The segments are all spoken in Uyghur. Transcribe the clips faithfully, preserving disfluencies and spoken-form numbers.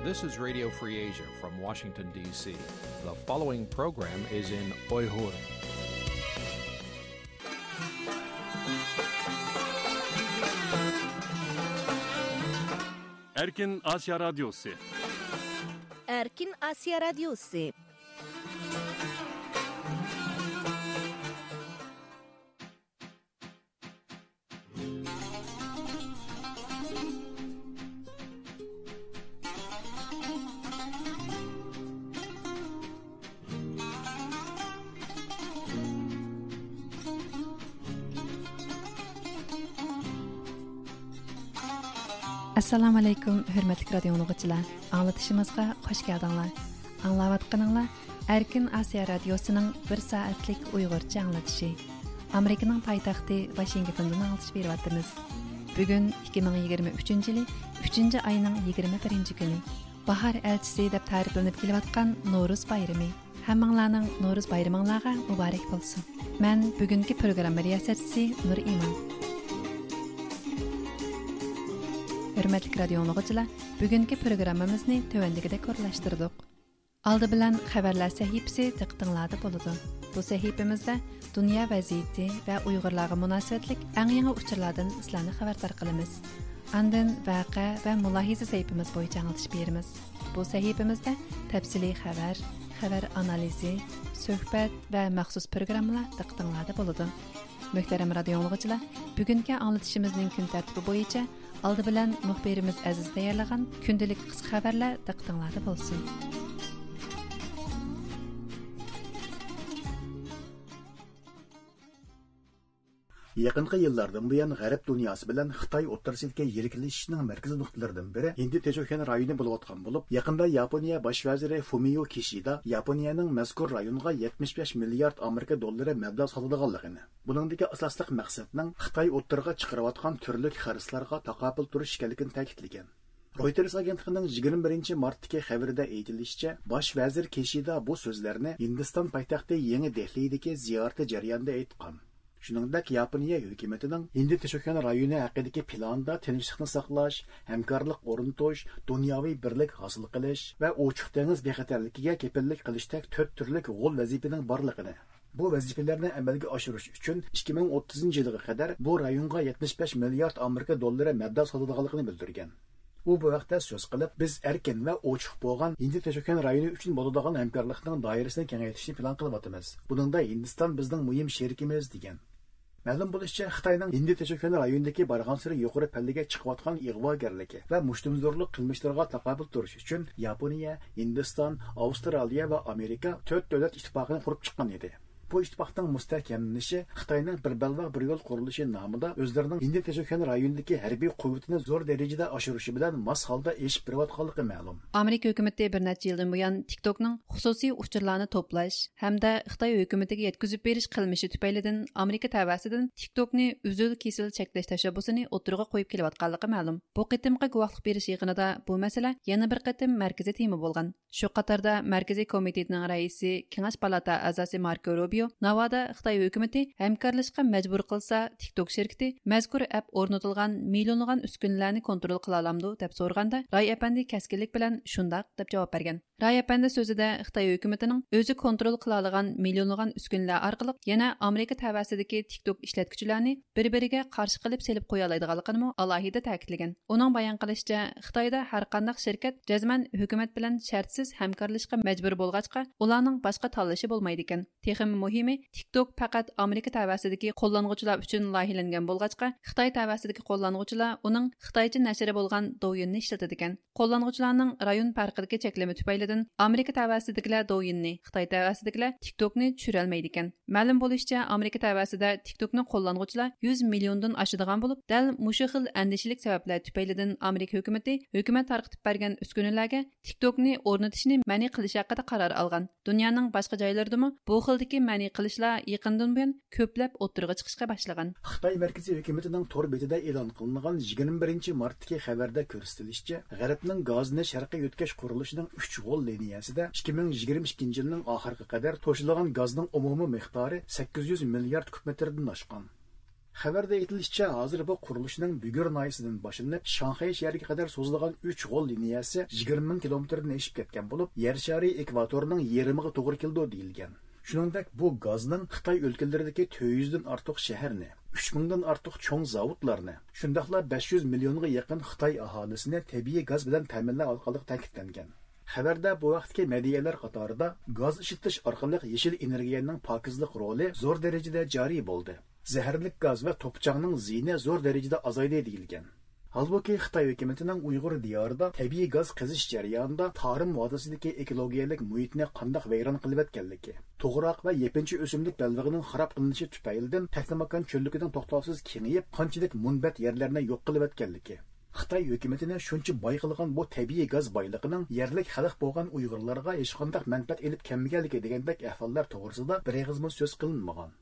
This is Radio Free Asia from Washington, D C. The following program is in Uyghur. Erkin Asya Radyosu. Erkin Asya Radyosu. ئەسسالامۇئەلەيكۇم، ھۆرمەتلىك رادىيو ئاڭلىغۇچىلار. ئاڭلىتىشىمىزغا خۇش كەلدىڭلار. ئاڭلاۋاتقىنىڭلار ئەركىن ئاسىيا رادىيوسىنىڭ بىر سائەتلىك ئۇيغۇرچە ئاڭلىتىشى. ئامېرىكىنىڭ پايتەختى ۋاشىنگتوندىن ئاڭلىتىش بېرىۋاتىمىز. بۈگۈن ئىككى مىڭ يىگىرمە ئۈچىنچى يىلى ئۈچىنچى ئاينىڭ يىگىرمە بىرىنچى كۈنى. باھار ئەلچىسى دەپ تەرىپلىنىپ كېلىۋاتقان نورۇز بايرىمى. ھەممىڭلارنىڭ نورۇز بايرىمىڭلارغا مۇبارەك بولسۇن. مەن بۈگۈنكى پروگرامما رىياسەتچىسى نۇر ئىمان. ھۆرمەتلىك رادىيو ئاڭلىغۇچىلار، بۈگۈنكى پروگراممىمىزنى تۆۋەندىكىدەك ئورۇنلاشتۇردۇق. ئالدى بىلەن خەۋەرلەر سەھىپىسى دىققىتىڭلاردا بولىدۇ. بۇ سەھىپىمىزدە دۇنيا ۋەزىيىتى ۋە ئۇيغۇرلارغا مۇناسىۋەتلىك ئەڭ يېڭى ئۇچۇرلاردىن سىلەرنى خەۋەردار قىلىمىز. ئاندىن ۋەقە ۋە مۇلاھىزە سەھىپىمىز بويىچە ئاڭلىتىش بېرىمىز. بۇ سەھىپىمىزدە تەپسىلىي خەۋەر، خەۋەر ئانالىزى، سۆھبەت ۋە مەخسۇس پروگراممىلار دىققىتىڭلاردا بولىدۇ. مۆھتەرەم رادىيو ئاڭلىغۇچىلار، بۈگۈنكى ئاڭلىتىشىمىزنىڭ كۈن تەرتىپى بويىچە ئالدى بىلەن مۇخبىرىمىز ئەزىز تەييارلىغان كۈندىلىك قىسقا خەۋەرلەر دىققىتىڭلاردا بولسۇن. يېقىنقى يىللاردىن بۇيان، غەرب دۇنياسى بىلەن خىتاي ئوتتۇرىسىدىكى يىرىكلىشىشنىڭ مەركىزىي نۇقتىلىرىدىن بىرى ھىندى تىنچ ئوكيان رايونى بولۇۋاتقان بولۇپ، يېقىندا ياپونىيە باش ۋەزىرى فۇمىيو كىشىدا ياپونىيەنىڭ مەزكۇر رايونغا يەتمىش بەش مىليارد ئامېرىكا دوللىرى مەبلەغ سالىدىغانلىقىنى، بۇنىڭدىكى ئاساسلىق مەقسەتنىڭ خىتاي ئوتتۇرىغا چىقىرىۋاتقان تۈرلۈك خىرىسلارغا تاقابىل تۇرۇش ئىكەنلىكىنى تەكىتلىگەن. رويتېرس ئاگېنتلىقىنىڭ يىگىرمە بىرىنچى مارتتىكى خەۋىرىدە ئېيتىلىشىچە، باش ۋەزىر كىشىدا بۇ سۆزلەرنى ھىندىستان پايتەختى يېڭى دېھلىدىكى زىيارىتى جەريانىدا ئېيتقان. شۇنىڭدەك، ياپونىيە ھۆكۈمىتىنىڭ ھىندى تىنچ ئوكيان رايونى ھەققىدىكى پىلانىدا تىنچلىقنى ساقلاش، ھەمكارلىق ئورنىتىش، دۇنياۋى بىرلىك ھاسىل قىلىش ۋە ئوچۇق دېڭىز بىخەتەرلىكىگە كېپىللىك قىلىشتەك تۆت تۈرلۈك غول ۋەزىپىنىڭ بارلىقىنى، بۇ ۋەزىپىلەرنى ئەمەلگە ئاشۇرۇش ئۈچۈن ئىككى مىڭ ئوتتۇزىنچى يىلغا قەدەر بۇ رايونغا يەتمىش بەش مىليارد ئامېرىكا دوللىرى مەبلەغ سالىدىغانلىقىنى بىلدۈرگەن. ئۇ بۇ ھەقتە سۆز قىلىپ، بىز ئەركىن ۋە ئوچۇق بولغان ھىندى تىنچ ئوكيان رايونى ئۈچۈن بولىدىغان ھەمكارلىقنىڭ دائىرىسىنى كېڭەيتىشنى پىلان قىلىۋاتىمىز. بۇنىڭدا ھىندىستان بىزنىڭ مۇھىم شېرىكىمىز، دېگەن. مەلۇم بولۇشىچە، خىتاينىڭ ھىندى تىنچ ئوكيان رايونىدىكى بارغانسېرى يۇقىرى پەللىگە چىقىۋاتقان ئىغۋاگەرلىكى ۋە مۇشتۇمزورلۇق قىلمىشلىرىغا تاقابىل تۇرۇش ئۈچۈن ياپونىيە، ھىندىستان، ئاۋسترالىيە ۋە ئامېرىكا تۆت دۆلەت ئىتتىپاقىنى قۇرۇپ چىققان ئىدى. بۇ ئىتتىپاقنىڭ مۇستەھكەملىنىشى خىتاينىڭ بىر بەلباغ بىر يول قۇرۇلۇشى نامىدا ئۆزلىرىنىڭ ھىندى تىنچ ئوكيان رايونىدىكى ھەربىي قۇۋۋىتىنى زور دەرىجىدە ئاشۇرۇشى بىلەن ماس ھالدا ئېشىپ بېرىۋاتقانلىقى مەلۇم. ئامېرىكا ھۆكۈمىتى بىر نەچچە يىلدىن بۇيان تىك توكنىڭ خۇسۇسىي ئۇچۇرلارنى توپلاش ھەمدە خىتاي ھۆكۈمىتىگە يەتكۈزۈپ بېرىش قىلمىشى تۈپەيلىدىن ئامېرىكا تەۋەسىدىن تىك توكنى ئۈزۈل كېسىل چەكلەش تەشەببۇسىنى ئوتتۇرىغا قويۇپ كېلىۋاتقانلىقى مەلۇم. بۇ قېتىمقى گۇۋاھلىق بېرىش يىغىنىدا بۇ مەسىلە يەنە بىر قېتىم مەركىزىي تېما بولغان. شۇ قاتاردا مەركىزىي كومىتېتنىڭ رەئىسى، كېڭەش پالاتا ئەزاسى ماركو روبىيو ناۋادا خىتاي ھۆكۈمىتى ھەمكارلىشىشقا مەجبۇر قىلسا، تىك توك شىركىتى مەزكۇر ئەپ ئورنىتىلغان مىليونلىغان ئۈسكۈنىلەرنى كونترول قىلالامدۇ، دەپ سورىغاندا، راي ئەپەندى كەسكىنلىك بىلەن شۇنداق، دەپ جاۋاب بەرگەن. راي ئەپەندى سۆزىدە خىتاي ھۆكۈمىتىنىڭ ئۆزى كونترول قىلالىغان مىليونلىغان ئۈسكۈنىلەر ئارقىلىق يەنە ئامېرىكا تەۋەسىدىكى تىك توك ئىشلەتكۈچىلەرنى بىر بىرىگە قارشى قىلىپ سېلىپ قويالايدىغانلىقىنىمۇ ئالاھىدە تەكىتلىگەن. ئۇنىڭ بايان قىلىشىچە، خىتايدا ھەرقانداق شىركەت جەزمەن ھۆكۈمەت بىلەن شەرتسىز ھەمكارلىشىشقا مەجبۇر بولغاچقا، ئۇلارنىڭ باشقا تاللىشى بولمايدىكەن. تېخىمۇ مۇھىمى، تىك توك پەقەت ئامېرىكا تەۋەسىدىكى قوللانغۇچىلار ئۈچۈن لايىھەلەنگەن بولغاچقا، خىتاي تەۋەسىدىكى قوللانغۇچىلار ئۇنىڭ خىتايچە نەشرى بولغان دوۋيىننى ئىشلىتىدىكەن. قوللانغۇچىلارنىڭ رايون پەرقىدىكى چەكلىمە تۈپەيلىدىن ئامېرىكا تەۋەسىدىكىلەر دوۋيىننى، خىتاي تەۋەسىدىكىلەر تىك توكنى چۈشۈرەلمەيدىكەن. مەلۇم بولۇشىچە، ئامېرىكا تەۋەسىدە تىك توكنى قوللانغۇچىلار يۈز مىليوندىن ئاشىدىغان بولۇپ، دەل مۇشۇ خىل ئەندىشىلىك سەۋەبلەر تۈپەيلىدىن ئامېرىكا ھۆكۈمىتى ھۆكۈمەت تارقىتىپ بەرگەن ئۈسكۈنىلەرگە تىك توكنى ئورنىتىشنى مەنئى قىلىش ھەققىدە قارار ئالغان. دۇنيانىڭ باشقا جايلىرىدىمۇ بۇ خىلدىكى مەنئى قىلىشلار يېقىندىن بۇيان كۆپلەپ ئوتتۇرىغا چىقىشقا باشلىغان. خىتاي مەركىزىي ھۆكۈمىتىنىڭ تور بېتىدە ئېلان قىلىنغان يىگىرمە بىرىنچى مارتتىكى خەۋەردە كۆرسىتىلىشىچە، غەربنىڭ گازنى شەرققە يۆتكەش قۇرۇلۇشىنىڭ ئۈچ غول لىنىيەسىدە ئىككى مىڭ يىگىرمە ئىككىنچى يىلنىڭ ئاخىرىغا قەدەر توشۇلغان گازنىڭ ئومۇمىي مىقدارى سەككىز يۈز مىليارد كۇب مېتىردىن ئاشقان. خەۋەردە ئېيتىلىشىچە، ھازىر بۇ قۇرۇلۇشنىڭ بۈگۈر ناھىيەسىدىن باشلىنىپ، شاڭخەي شەھىرىگە قەدەر سوزۇلغان ئۈچ غول لىنىيەسى يىگىرمە مىڭ كىلومېتىردىن ئېشىپ كەتكەن بولۇپ، يەر شارى ئېكۋاتورىنىڭ يېرىمىغا توغرا كېلىدۇ دېيىلگەن. شۇنىڭدەك، بۇ گازنىڭ خىتاي ئۆلكىلىرىدىكى تۆت يۈزدىن ئارتۇق شەھەرنى، ئۈچ مىڭدىن ئارتۇق چوڭ زاۋۇتلارنى، شۇنداقلا بەش يۈز مىليونغا يېقىن خىتاي ئاھالىسىنى تەبىئىي گاز بىلەن تەمىنلەۋاتقانلىقى تەكىتلەنگەن. خەۋەردە بۇ ھەقتىكى مەدھىيەلەر قاتارىدا گاز ئىشلىتىش ئارقىلىق يېشىل ئېنېرگىيەنىڭ پاكىزلىق رولى زور دەرىجىدە جارى بولدى. زەھەرلىك گاز ۋە توپا-چاڭنىڭ زىيىنى زور دەرىجىدە ئازايدى دېيىلگەن. ھالبۇكى، خىتاي ھۆكۈمىتىنىڭ ئۇيغۇر دىيارىدا تەبىئىي گاز قېزىش جەريانىدا تارىم ۋادىسىدىكى ئېكولوگىيەلىك مۇھىتنى قانداق ۋەيران قىلىۋەتكەنلىكى، توغراق ۋە يېپىنچا ئۆسۈملۈك بەلبېغىنىڭ خاراب قىلىنىشى تۈپەيلىدىن تەكلىماكان چۆللۈكىنىڭ توختاۋسىز كېڭىيىپ، قانچىلىك مۇنبەت يەرلەرنى يوق قىلىۋەتكەنلىكى، خىتاي ھۆكۈمىتىنى شۇنچە باي قىلغان بۇ تەبىئىي گاز بايلىقىنىڭ يەرلىك خەلق بولغان ئۇيغۇرلارغا ھېچقانداق مەنپەئەت ئېلىپ كەلمىگەنلىكى دېگەندەك ئەھۋاللار توغرىسىدا بىر ئېغىزمۇ سۆز قىلىنمىغان.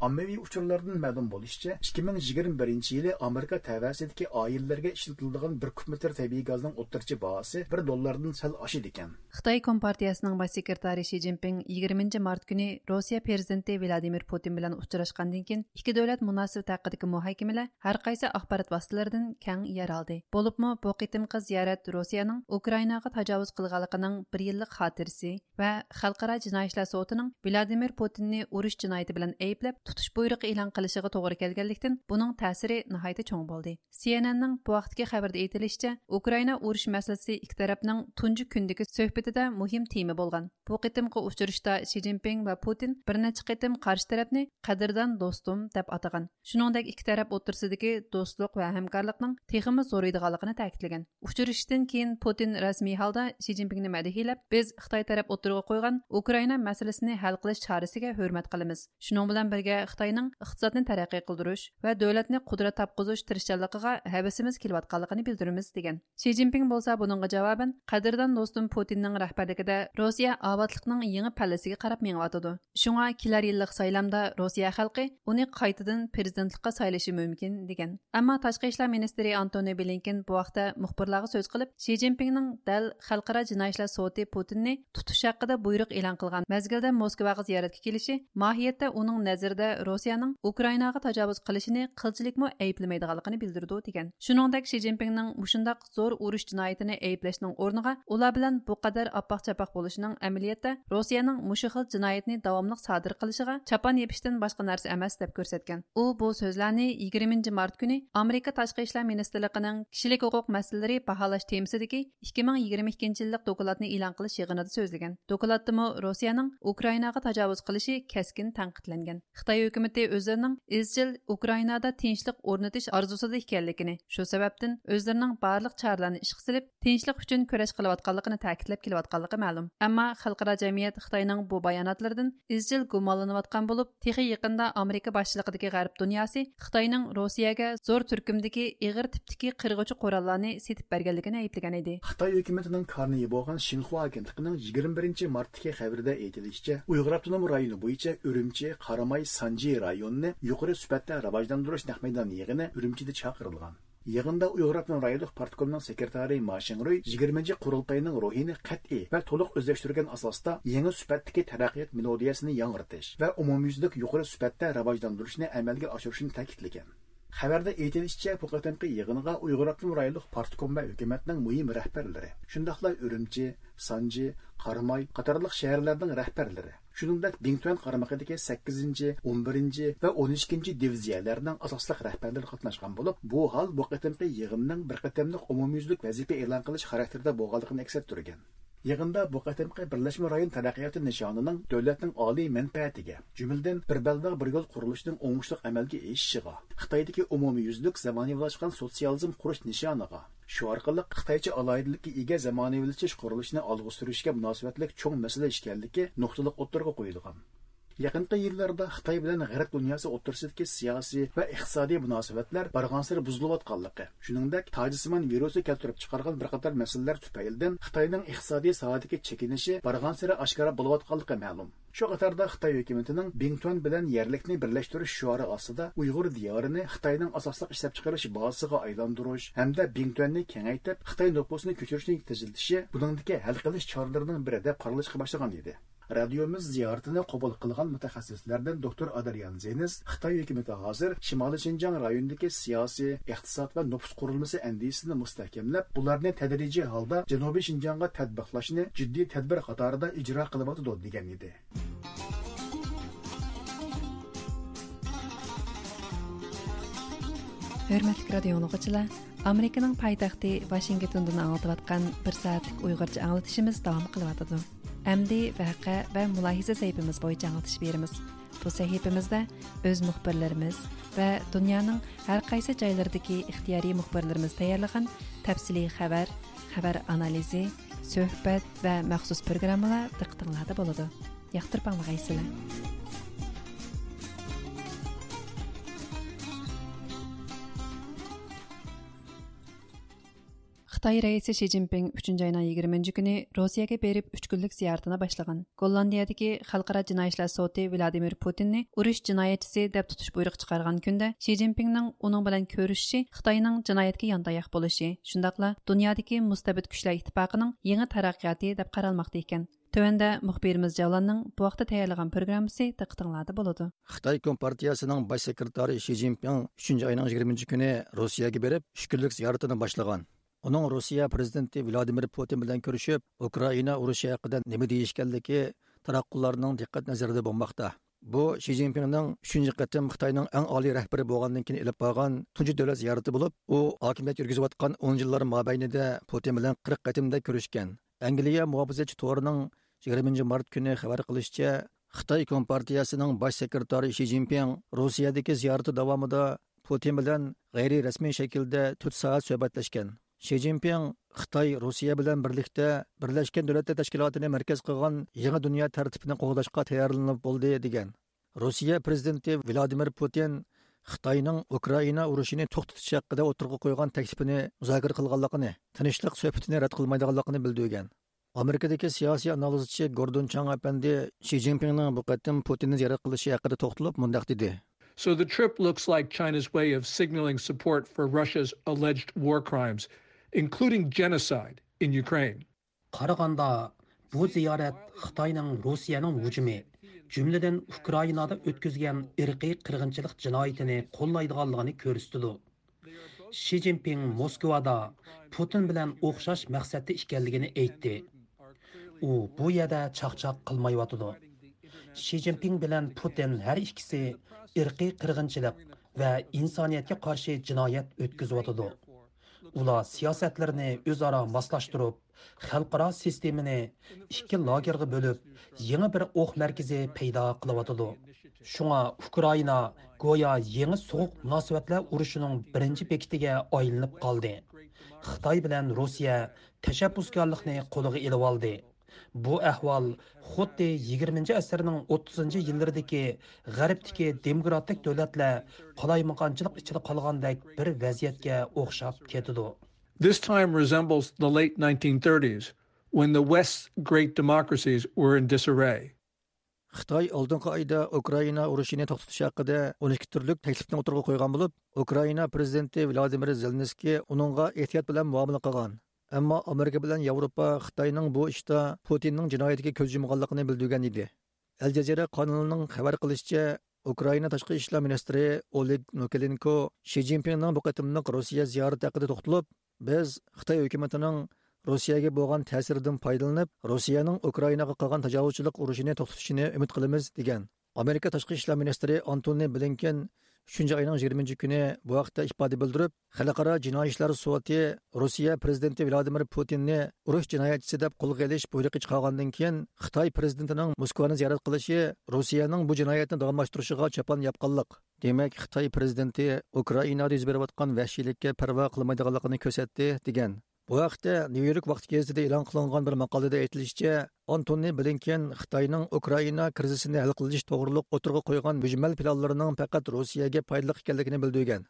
ئاممىۋى ئۇچۇرلاردىن مەلۇم بولۇشىچە، ئىككى مىڭ يىگىرمە بىرىنچى يىلى ئامېرىكا تەۋەسىدىكى ئائىلىلەرگە ئىشلىتىلىدىغان بىر كۇب مېتىر تەبىئىي گازنىڭ ئوتتۇرىچە باھاسى بىر دوللاردىن سەل ئاشىدىكەن. خىتاي كومپارتىيەسىنىڭ باش سېكرېتارى شى جىنپىڭ يىگىرمىنچى مارت كۈنى روسىيە پىرېزىدېنتى ۋلادىمىر پۇتىن بىلەن ئۇچراشقاندىن كېيىن، ئىككى دۆلەت مۇناسىۋىتى ھەققىدىكى مۇھاكىمىلەر ھەر قايسى ئاخبارات ۋاسىتىلىرىدىن كەڭ يەر ئالدى. بولۇپمۇ بۇ قېتىمقى زىيارەت روسىيەنىڭ ئۇكرائىناغا تاجاۋۇز قىلغانلىقىنىڭ بىر يىللىق خاتىرىسى ۋە خەلقئارا جىنايى ئىشلار سوتىنىڭ ۋلادىمىر پۇتىننى ئۇرۇش جىنايىتى بىلەن ئەيىبلەپ، تۇتۇش بۇيرۇقى ئېلان قىلىشىغا توغرا كەلگەنلىكتىن، بۇنىڭ تەسىرى ناھايىتى چوڭ بولدى. سى ئېن ئېننىڭ بۇ ھەقتىكى خەۋىرىدە ئېيتىلىشىچە، ئۇكرائىنا ئۇرۇش مەسىلىسى ئىككى تەرەپنىڭ تۇنجى كۈندىكى سۆھبىتىدە مۇھىم تېما بولغان. بۇ قېتىمقى ئۇچرىشىشتا شى جىنپىڭ ۋە پۇتىن بىر نەچچە قېتىم قارشى تەرەپنى قەدىردان دوستۇم دەپ ئاتىغان. شۇنىڭدەك ئىككى تەرەپ ئوتتۇرىسىدىكى دوستلۇق ۋە ھەمكارلىقنىڭ تېخىمۇ زورىيىدىغانلىقىنى تەكىتلىگەن. ئۇچرىشىشتىن كېيىن پۇتىن رەسمىي ھالدا شى جىنپىڭنى مەدھىيەلەپ، بىز خىتاي تەرەپ ئوتتۇرىغا قويغان ئۇكرائىنا مەسىلىسىنى ھەل قىلىش چارىسىگە ھۆرمەت قىلىمىز. شۇنىڭ بىلەن بىرگە، خىتاينىڭ ئىقتىسادنى تەرەققىي قىلدۇرۇش ۋە دۆلەتنى قۇدرەت تاپقۇزۇش تىرىشچانلىقىغا ھەۋىسىمىز كېلىۋاتقانلىقىنى بىلدۈرىمىز، دېگەن. شى جىنپىڭ بولسا بۇنىڭغا جاۋابەن، قەدىردان دوستۇم پۇتىننىڭ رەھبەرلىكىدە روسىيە ئاۋاتلىقنىڭ يېڭى پەللىسىگە قاراپ مېڭىۋاتىدۇ. شۇڭا كېلەر يىللىق سايلامدا روسىيە خەلقى ئۇنى قايتىدىن پىرېزىدېنتلىققا سايلىشى مۇمكىن، دېگەن. ئەمما تاشقى ئىشلار مىنىستىرى ئانتونى بلىنكېن بۇ ھەقتە مۇخبىرلارغا سۆز قىلىپ، شى جىنپىڭنىڭ دەل خەلقئارا جىنايى ئىشلار سوتى پۇتىننى تۇتۇش ھەققىدە بۇيرۇق ئېلان قىلغان مەزگىلدە موسكۋاغا زىيارەتكە كېلىشى ماھىيەتتە ئۇنىڭ نەزىرىدە روسىيەنىڭ ئۇكرائىناغا تاجاۋۇز قىلىشىنى قىلچىلىكمۇ ئەيىبلىمەيدىغانلىقىنى بىلدۈرىدۇ، دېگەن. شۇنىڭدەك، شى جىنپىڭنىڭ مۇشۇنداق زور ئۇرۇش جىنايىتىنى ئەيىبلەشنىڭ ئورنىغا، ئۇلار بىلەن بۇ قەدەر ئاپئاق-چاپئاق بولۇشىنىڭ ئەمەلىيەتتە روسىيەنىڭ مۇشۇ خىل جىنايەتنى داۋاملىق سادىر قىلىشىغا چاپان يېپىشتىن باشقا نەرسە ئەمەس، دەپ كۆرسەتكەن. ئۇ بۇ سۆزلەرنى يىگىرمىنچى مارت كۈنى ئامېرىكا تاشقى ئىشلار مىنىستىرلىقىنىڭ كىشىلىك ھوقۇق مەسىلىلىرى باھالاش تېمىسىدىكى ئىككى مىڭ يىگىرمە ئىككىنچى يىللىق دوكلاتنى ئېلان قىلىش يىغىنىدا سۆزلىگەن. دوكلاتتىمۇ روسىيەنىڭ ئۇكرائىناغا تاجاۋۇز قىلىشى كەسكىن تەنقىدلەنگەن. خىتاي ھۆكۈمىتى ئۆزلىرىنىڭ ئىزچىل ئۇكرائىنادا تىنچلىق ئورنىتىش ئارزۇسىدا ئىكەنلىكىنى، شۇ سەۋەبتىن ئۆزلىرىنىڭ بارلىق چارىلەرنى ئىشقا سېلىپ، تىنچلىق ئۈچۈن كۈرەش قىلىۋاتقانلىقىنى تەكىتلەپ كېلىۋاتقانلىقى مەلۇم. ئەمما خەلقئارا جەمئىيەت خىتاينىڭ بۇ باياناتلىرىدىن ئىزچىل گۇمانلىنىۋاتقان بولۇپ، تېخى يېقىندا ئامېرىكا باشچىلىقىدىكى غەرب دۇنياسى خىتاينىڭ روسىيەگە زور تۈركۈمدىكى ئېغىر تىپتىكى قىرغۇچى قوراللارنى سېتىپ بەرگەنلىكىنى ئەيىبلىگەن ئىدى. خىتاي ھۆكۈمىتىنىڭ كارنىيى بولغان شىنخۇا ئاگېنتلىقىنىڭ يىگىرمە بىرىنچى مارتتىكى خەۋىرىدە ئېيتىلىشىچە، ئۇيغۇر ئاپتونوم رايونى بويىچە ئۈرۈمچى، قاراماي، سانجى رايونىنى يۇقىرى سۈپەتتە راۋاجلاندۇرۇش نەق مەيدان يىغىنى ئۈرۈمچىدە چاقىرىلغان. يىغىندا ئۇيغۇر ئاپتونوم رايونلۇق پارتكومنىڭ سېكرېتارى ما شىڭرۇي يىگىرمىنچى قۇرۇلتاينىڭ روھىنى قەتئىي ۋە تولۇق ئۆزلەشتۈرگەن ئاساستا يېڭى سۈپەتتىكى تەرەققىيات مېلودىيەسىنى ياڭرىتىش ۋە ئومۇميۈزلۈك يۇقىرى سۈپەتتە راۋاجلاندۇرۇشنى ئەمەلگە ئاشۇرۇشنى تەكىتلىگەن. خەۋەردە ئېيتىلىشىچە، بۇ قېتىمقى يىغىنغا ئۇيغۇر ئاپتونوم رايونلۇق پارتكوم ۋە ھۆكۈمەتنىڭ مۇھىم رەھبەرلىرى، شۇنداقلا ئۈرۈمچى، سانجى، قاراماي قاتارلىق شەھەرلەرنىڭ رەھبەرلىرى، شۇنىڭدەك بىڭتۈەن قارمىقىدىكى سەككىزىنچى، ئون بىرىنچى ۋە ئون ئىككىنچى دىۋىزىيەلەرنىڭ ئاساسلىق رەھبەرلىرى قاتناشقان بولۇپ، بۇ ھال بۇ قېتىمقى يىغىننىڭ بىر قېتىملىق ئومۇميۈزلۈك ۋەزىپە ئېلان قىلىش خاراكتېرىدە بولغانلىقىنى ئەكس ئەتتۈرگەن. يىغىندا بۇ قېتىمقى بىرلەشمە رايون تەرەققىياتى نىشانىنىڭ دۆلەتنىڭ ئالىي مەنپەئەتىگە، جۈملىدىن بىر بەلباغ بىر يول قۇرۇلۇشىنىڭ ئوڭۇشلۇق ئەمەلگە ئېشىشىغا، خىتايدىكى ئومۇميۈزلۈك زامانىۋىلاشقان سوتسىيالىزم قۇرۇش نىشانىغا، شۇ ئارقىلىق خىتايچە ئالاھىدىلىككە ئىگە زامانىۋىلىشىش قۇرۇلۇشىنى ئالغا سۈرۈشكە مۇناسىۋەتلىك چوڭ مەسىلە ئىكەنلىكى نۇقتىلىق ئوتتۇرىغا قويۇلغان. يېقىنقى يىللاردا خىتاي بىلەن غەرب دۇنياسى ئوتتۇرىسىدىكى سىياسىي ۋە ئىقتىسادىي مۇناسىۋەتلەر بارغانسېرى بۇزۇلۇۋاتقانلىقى، شۇنىڭدەك تاجسىمان ۋىرۇسى كەلتۈرۈپ چىقارغان بىر قاتار مەسىلىلەر تۈپەيلىدىن خىتاينىڭ ئىقتىسادىي ساھەدىكى چېكىنىشى بارغانسېرى ئاشكارا بولۇۋاتقانلىقى مەلۇم. شۇ قاتاردا خىتاي ھۆكۈمىتىنىڭ بىڭتۈەن بىلەن يەرلىكنى بىرلەشتۈرۈش شوئارى ئاستىدا ئۇيغۇر دىيارىنى خىتاينىڭ ئاساسلىق ئىشلەپچىقىرىش بازىسىغا ئايلاندۇرۇش ھەمدە بىڭتۈەننى كېڭەيتىپ، خىتاي نوپۇسىنى كۆچۈرۈشنى تېزلىتىشى بۇنىڭدىكى ھەل قىلىش چارىلىرىنىڭ بىرى دەپ قارىلىشقا باشلىغان ئىدى. رادىيومىز زىيارىتىنى قوبۇل قىلغان مۇتەخەسسىسلەردىن دوكتور ئادرىيان زېنىس خىتاي ھۆكۈمىتى ھازىر شىمالىي شىنجاڭ رايونىدىكى سىياسىي، ئىقتىساد ۋە نوپۇس قۇرۇلمىسى ئەندىزىسىنى مۇستەھكەملەپ، بۇلارنى تەدرىجىي ھالدا جەنۇبىي شىنجاڭغا تەتبىقلاشنى جىددىي تەدبىر قاتارىدا ئىجرا قىلىۋاتىدۇ، دېگەن ئىدى. ھۆرمەتلىك رادىيو ئاڭلىغۇچىلار، ئامېرىكىنىڭ پايتەختى ۋاشىنگتوندىن ئاڭلىتىۋاتقان بىر سائەتلىك ئۇيغۇرچە ئاڭلىتىشىمىز داۋام قىلىۋاتىدۇ. ئەمدى ۋەقە ۋە مۇلاھىزە سەھىپىمىز بويىچە ئاڭلىتىش بېرىمىز. بۇ سەھىپىمىزدە ئۆز مۇخبىرلىرىمىز ۋە دۇنيانىڭ ھەر قايسى جايلىرىدىكى ئىختىيارىي مۇخبىرلىرىمىز تەييارلىغان تەپسىلىي خەۋەر، خەۋەر ئانالىزى، سۆھبەت ۋە مەخسۇس پروگراممىلار دىققىتىڭلاردا بولىدۇ. ياقتۇرۇپ ئاڭلىغايسىلەر. خىتاي رەئىسى شى جىنپىڭ ئۈچىنچى ئاينىڭ يىگىرمىنچى كۈنى روسىيەگە بېرىپ، ئۈچ كۈنلۈك زىيارىتىنى باشلىغان. گوللاندىيەدىكى خەلقئارا جىنايى ئىشلار سوتى ۋلادىمىر پۇتىننى ئۇرۇش جىنايەتچىسى دەپ تۇتۇش بۇيرۇقى چىقارغان كۈندە، شى جىنپىڭنىڭ ئۇنىڭ بىلەن كۆرۈشۈشى خىتاينىڭ جىنايەتكە يانداياق بولۇشى، شۇنداقلا دۇنيادىكى مۇستەبىت كۈچلەر ئىتتىپاقىنىڭ يېڭى تەرەققىياتى دەپ قارالماقتا ئىكەن. تۆۋەندە مۇخبىرىمىز جەۋلاننىڭ بۇ ھەقتە تەييارلىغان پروگراممىسى دىققىتىڭلاردا بولىدۇ. خىتاي كومپارتىيەسىنىڭ باش سېكرېتارى شى جىنپىڭ ئۈچىنچى ئاينىڭ يىگىرمىنچى كۈنى روسىيەگە بېرىپ، ئۈچ كۈنلۈك زىيارىتىنى باشلىغان. ئۇنىڭ روسىيە پىرېزىدېنتى ۋلادىمىر پۇتىن بىلەن كۆرۈشۈپ، ئۇكرائىنا ئۇرۇشى ھەققىدە نېمە دېيىشكەنلىكى تاراتقۇلارنىڭ دىققەت نەزىرىدە بولماقتا. بۇ شى جىنپىڭنىڭ ئۈچىنچى قېتىم خىتاينىڭ ئەڭ ئالىي رەھبىرى بولغاندىن كېيىن ئېلىپ بارغان تۇنجى دۆلەت زىيارىتى بولۇپ، ئۇ ھاكىمىيەت يۈرگۈزۈۋاتقان ئون يىللار مابەينىدە پۇتىن بىلەن قىرىق قېتىمدەك كۆرۈشكەن. ئەنگلىيە مۇھاپىزەتچى تورىنىڭ يىگىرمىنچى مارت كۈنى خەۋەر قىلىشىچە، خىتاي كومپارتىيەسىنىڭ باش سېكرېتارى شى جىنپىڭ روسىيەدىكى زىيارىتى داۋامىدا پۇتىن بىلەن غەيرىي رەسمىي شەكىلدە تۆت سائەت سۆھبەتلەشكەن. شى جىنپىڭ خىتاي روسىيە بىلەن بىرلىكتە بىرلەشكەن دۆلەتلەر تەشكىلاتىنى مەركەز قىلغان يېڭى دۇنيا تەرتىپىنى قوغداشقا تەييارلىنىپ بولدى، دېگەن. روسىيە پىرېزىدېنتى ۋلادىمىر پۇتىن خىتاينىڭ ئۇكرائىنا ئۇرۇشىنى توختىتىش ھەققىدە ئوتتۇرىغا قويغان تەكلىپىنى مۇزاكىرە قىلغانلىقىنى، تىنچلىق سۆھبىتىنى رەت قىلمايدىغانلىقىنى بىلدۈرگەن. ئامېرىكىدىكى سىياسىي ئانالىزچى گوردون چاڭ ئەپەندى شى جىنپىڭنىڭ بۇ قېتىم پۇتىننى زىيارەت قىلىشى ھەققىدە توختىلىپ مۇنداق دېدى. So the trip looks like China's way of signaling support for Russia's alleged war crimes, including genocide in Ukraine. قارىغاندا، بۇ زىيارەت خىتاينىڭ روسىيەنىڭ ھۇجۇمى، جۈملىدىن ئۇكرائىنادا ئۆتكۈزگەن ئىرقىي قىرغىنچىلىق جىنايىتىنى قوللايدىغانلىقىنى كۆرسىتىدۇ. شى جىنپىڭ موسكۋادا پۇتىن بىلەن ئوخشاش مەقسەتتە ئىكەنلىكىنى ئېيتتى. ئۇ بۇ يەردە چاقچاق قىلمايۋاتىدۇ. شى جىنپىڭ بىلەن پۇتىن ھەر ئىككىسى ئىرقىي قىرغىنچىلىق ۋە ئىنسانىيەتكە قارشى جىنايەت ئۆتكۈزۈۋاتىدۇ. ئۇلار سىياسەتلىرىنى ئۆزئارا ماسلاشتۇرۇپ، خەلقئارا سىستېمىنى ئىككى لاگېرغا بۆلۈپ، يېڭى بىر ئوق مەركىزى پەيدا قىلىۋاتىدۇ. شۇڭا ئۇكرائىنا گويا يېڭى سوغۇق مۇناسىۋەتلەر ئۇرۇشىنىڭ بىرىنچى بېكىتىگە ئايلىنىپ قالدى. خىتاي بىلەن روسىيە تەشەببۇسكارلىقنى قولىغا ئېلىۋالدى. بۇ ئەھۋال خۇددى يىگىرمىنچى ئەسىرنىڭ ئوتتۇزىنچى يىللىرىدىكى غەربتىكى دېموكراتىك دۆلەتلەر قالايمىقانچىلىق ئىچىدە قالغاندەك بىر ۋەزىيەتكە ئوخشاپ كېتىدۇ. This time resembles the late nineteen thirties, when the West's great democracies were in disarray. خىتاي ئالدىنقى ئايدا ئۇكرائىنا ئۇرۇشىنى توختىتىش ھەققىدە ئون ئىككى تۈرلۈك تەكلىپنى ئوتتۇرىغا قويغان بولۇپ، ئۇكرائىنا پىرېزىدېنتى ۋلادىمىر زېلېنسكىي ئۇنىڭغا ئېھتىيات بىلەن مۇئامىلە قىلغان. ئەمما ئامېرىكا بىلەن ياۋروپا خىتاينىڭ بۇ ئىشتا پۇتىننىڭ جىنايىتىگە كۆز يۇمغانلىقىنى بىلدۈرگەن ئىدى. ئەل جەزىرە قانىلىنىڭ خەۋەر قىلىشىچە، ئۇكرائىنا تاشقى ئىشلار مىنىستىرى ئولېگ نوكىلېنكو شى جىنپىڭنىڭ بۇ قېتىملىق روسىيە زىيارىتى ھەققىدە توختىلىپ، بىز خىتاي ھۆكۈمىتىنىڭ روسىيەگە بولغان تەسىرىدىن پايدىلىنىپ، روسىيەنىڭ ئۇكرائىناغا قىلغان تاجاۋۇزچىلىق ئۇرۇشىنى توختىتىشىنى ئۈمىد قىلىمىز، دېگەن. ئامېرىكا تاشقى ئىشلار مىنىستىرى ئانتونى بلىنكېن ئۈچىنچى ئاينىڭ يىگىرمىنچى كۈنى بۇ ھەقتە ئىپادە بىلدۈرۈپ، خەلقئارا جىنايى ئىشلار سوتى روسىيە پىرېزىدېنتى ۋلادىمىر پۇتىننى ئۇرۇش جىنايەتچىسى دەپ قولغا ئېلىش بۇيرۇقى چىقارغاندىن كېيىن، خىتاي پىرېزىدېنتىنىڭ موسكۋانى زىيارەت قىلىشى روسىيەنىڭ بۇ جىنايەتنى داۋاملاشتۇرۇشىغا چاپان ياپقانلىق. دېمەك، خىتاي پىرېزىدېنتى ئۇكرائىنادا يۈز بېرىۋاتقان ۋەھشىيلىككە پەرۋا قىلمايدىغانلىقىنى كۆرسەتتى، دېگەن. بۇ ھەقتە نيۇ يورك ۋاقتى گېزىتىدە ئېلان قىلىنغان بىر ماقالىدە ئېيتىلىشىچە، ئانتونى بلىنكېن خىتاينىڭ ئۇكرائىنا كىرىزىسىنى ھەل قىلىش توغرۇلۇق ئوتتۇرىغا قويغان مۈجمەل پىلانلىرىنىڭ پەقەت روسىيەگە پايدىلىق ئىكەنلىكىنى بىلدۈرگەن.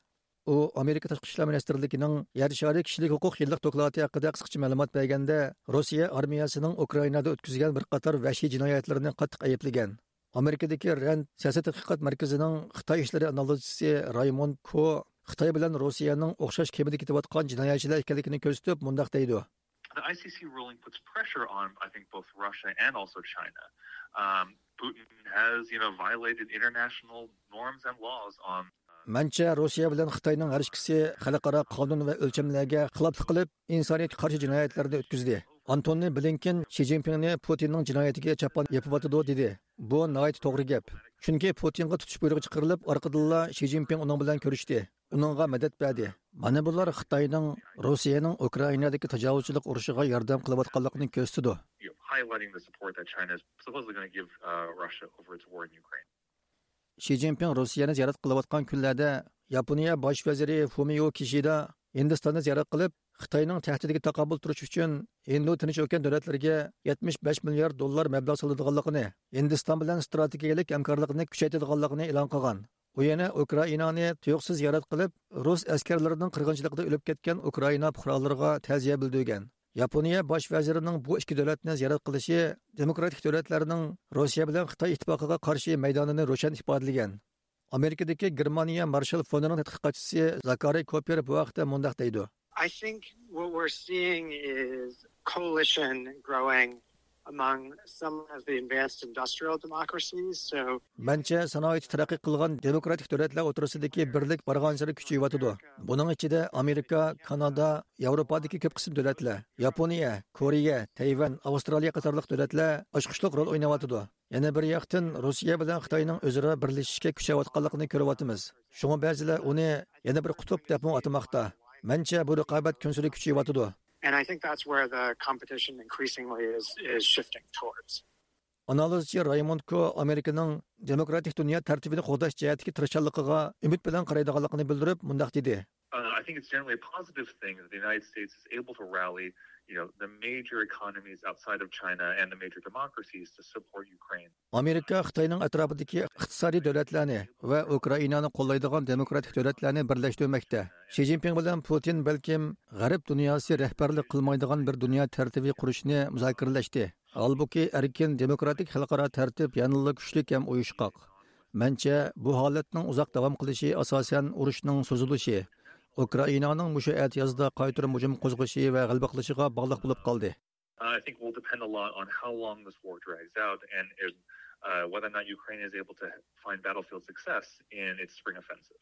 ئۇ ئامېرىكا تاشقى ئىشلار مىنىستىرلىكىنىڭ يەر شارى كىشىلىك ھوقۇق يىللىق دوكلاتى ھەققىدە قىسقىچە مەلۇمات بەرگەندە، روسىيە ئارمىيەسىنىڭ ئۇكرائىنادا ئۆتكۈزگەن بىر قاتار ۋەھشىي جىنايەتلىرىنى قاتتىق ئەيىبلىگەن. ئامېرىكىدىكى رەند سىياسىي تەتقىقات مەركىزىنىڭ خىتاي ئىشلىرى ئانالىزچىسى رايموند كو خىتاي بىلەن روسىيەنىڭ ئوخشاش كېمىدە كېتىۋاتقان جىنايەتچىلەر ئىكەنلىكىنى كۆرسىتىپ، مۇنداق دەيدۇ. The I C C ruling puts pressure on, I think, both Russia and also China. Um, Putin has, you know, violated international norms and laws on. مەنچە، روسىيە بىلەن خىتاينىڭ ھەر ئىككىسى خەلقئارا قانۇن ۋە ئۆلچەملەرگە خىلاپلىق قىلىپ، ئىنسانىيەتكە قارشى جىنايەتلەرنى ئۆتكۈزدى. ئانتونى بلىنكېن شى جىنپىڭنى پۇتىننىڭ جىنايىتىگە چاپان يېپىۋاتىدۇ دېدى. بۇ ناھايىتى توغرا گەپ. چۈنكى پۇتىنغا تۇتۇش بۇيرۇقى چىقىرىلىپ، ئارقىدىنلا شى جىنپىڭ ئۇنىڭ بىلەن كۆرۈشتى. ئۇنىڭغا مەدەت بەردى. مانا بۇلار خىتاينىڭ روسىيەنىڭ ئۇكرائىنادىكى تاجاۋۇزچىلىق ئۇرۇشىغا ياردەم قىلىۋاتقانلىقىنى كۆرسىتىدۇ. Highlighting the support that China is supposedly going to give uh, Russia over its war in Ukraine. شى جىنپىڭ روسىيەنى زىيارەت قىلىۋاتقان كۈنلەردە ياپونىيە باش ۋەزىرى فۇمىيو كىشىدا ھىندىستاننى زىيارەت قىلىپ، خىتاينىڭ تەھدىتىگە تاقابىل تۇرۇش ئۈچۈن ھىندى تىنچ ئوكيان دۆلەتلىرىگە يەتمىش بەش مىليارد دوللار مەبلەغ سالىدىغانلىقىنى، ھىندىستان بىلەن ستراتېگىيەلىك ھەمكارلىقنى كۈچەيتىدىغانلىقىنى ئېلان قىلغان. ئۇ يەنە ئۇكرائىنانى تۇيۇقسىز زىيارەت قىلىپ، رۇس ئەسكەرلىرىنىڭ قىرغىنچىلىقىدا ئۆلۈپ كەتكەن ئۇكرائىنا پۇقرالىرىغا تەزىيە بىلدۈرگەن. ياپونىيە باش ۋەزىرىنىڭ بۇ ئىككى دۆلەتنى زىيارەت قىلىشى دېموكراتىك دۆلەتلەرنىڭ روسىيە بىلەن خىتاي ئىتتىپاقىغا قارشى مەيدانىنى روشەن ئىپادىلىگەن. ئامېرىكىدىكى گېرمانىيە مارشال فوندىنىڭ تەتقىقاتچىسى زاكارىي كوپېر بۇ ھەقتە مۇنداق دەيدۇ. I think what we're seeing is coalition growing among some of the advanced industrial democracies. So مەنچە، سانائىتى تەرەققىي قىلغان دېموكراتىك دۆلەتلەر ئوتتۇرىسىدىكى بىرلىك بارغانسېرى كۈچىيىۋاتىدۇ. بۇنىڭ ئىچىدە ئامېرىكا، كانادا، ياۋروپادىكى كۆپ قىسىم دۆلەتلەر، ياپونىيە، كورېيە، تەيۋەن، ئاۋسترالىيە قاتارلىق دۆلەتلەر ئاچقۇچلۇق رول ئويناۋاتىدۇ. يەنە بىر ياقتىن، روسىيە بىلەن خىتاينىڭ ئۆزئارا بىرلىشىشكە كۈچەۋاتقانلىقىنى كۆرۈۋاتىمىز. شۇڭا بەزىلەر ئۇنى يەنە بىر قۇتۇپ دەپمۇ ئاتىماقتا. مەنچە، بۇ رىقابەت كۈنسېرى كۈچىيىۋاتىدۇ. And I think that's where the competition increasingly is, is shifting towards. ئانالىزچى رايموند كو ئامېرىكىنىڭ دېموكراتىك دۇنيا تەرتىپىنى قوغداش جەھەتتىكى تىرىشچانلىقىغا ئۈمىد بىلەن قارايدىغانلىقىنى بىلدۈرۈپ، مۇنداق دېدى. Uh, I think it's generally a positive thing that the United States is able to rally, you know, the major economies outside of China and the major democracies to support Ukraine. ئامېرىكا خىتاينىڭ ئەتراپىدىكى ئىقتىسادىي دۆلەتلەرنى ۋە ئۇكرائىنانى قوللايدىغان دېموكراتىك دۆلەتلەرنى بىرلەشتۈرمەكتە. شى جىنپىڭ بىلەن پۇتىن بەلكىم غەرب دۇنياسى رەھبەرلىك قىلمايدىغان بىر دۇنيا تەرتىپى قۇرۇشنى مۇزاكىرىلەشتى. ھالبۇكى، ئەركىن دېموكراتىك خەلقئارا تەرتىپ يەنىلا كۈچلۈك ھەم ئۇيۇشقاق. مەنچە، بۇ ھالەتنىڭ ئۇزاق داۋام قىلىشى ئاساسەن ئۇرۇشنىڭ سوزۇلۇشى، ئۇكرائىنانىڭ مۇشۇ ئەتىيازدا قايتۇرۇپ ھۇجۇم قوزغىشى ۋە غەلىبە قىلىشىغا باغلىق بولۇپ قالدى. Uh, I think will depend a lot on how long this war drags out and if, uh, whether or not Ukraine is able to find battlefield success in its spring offensive.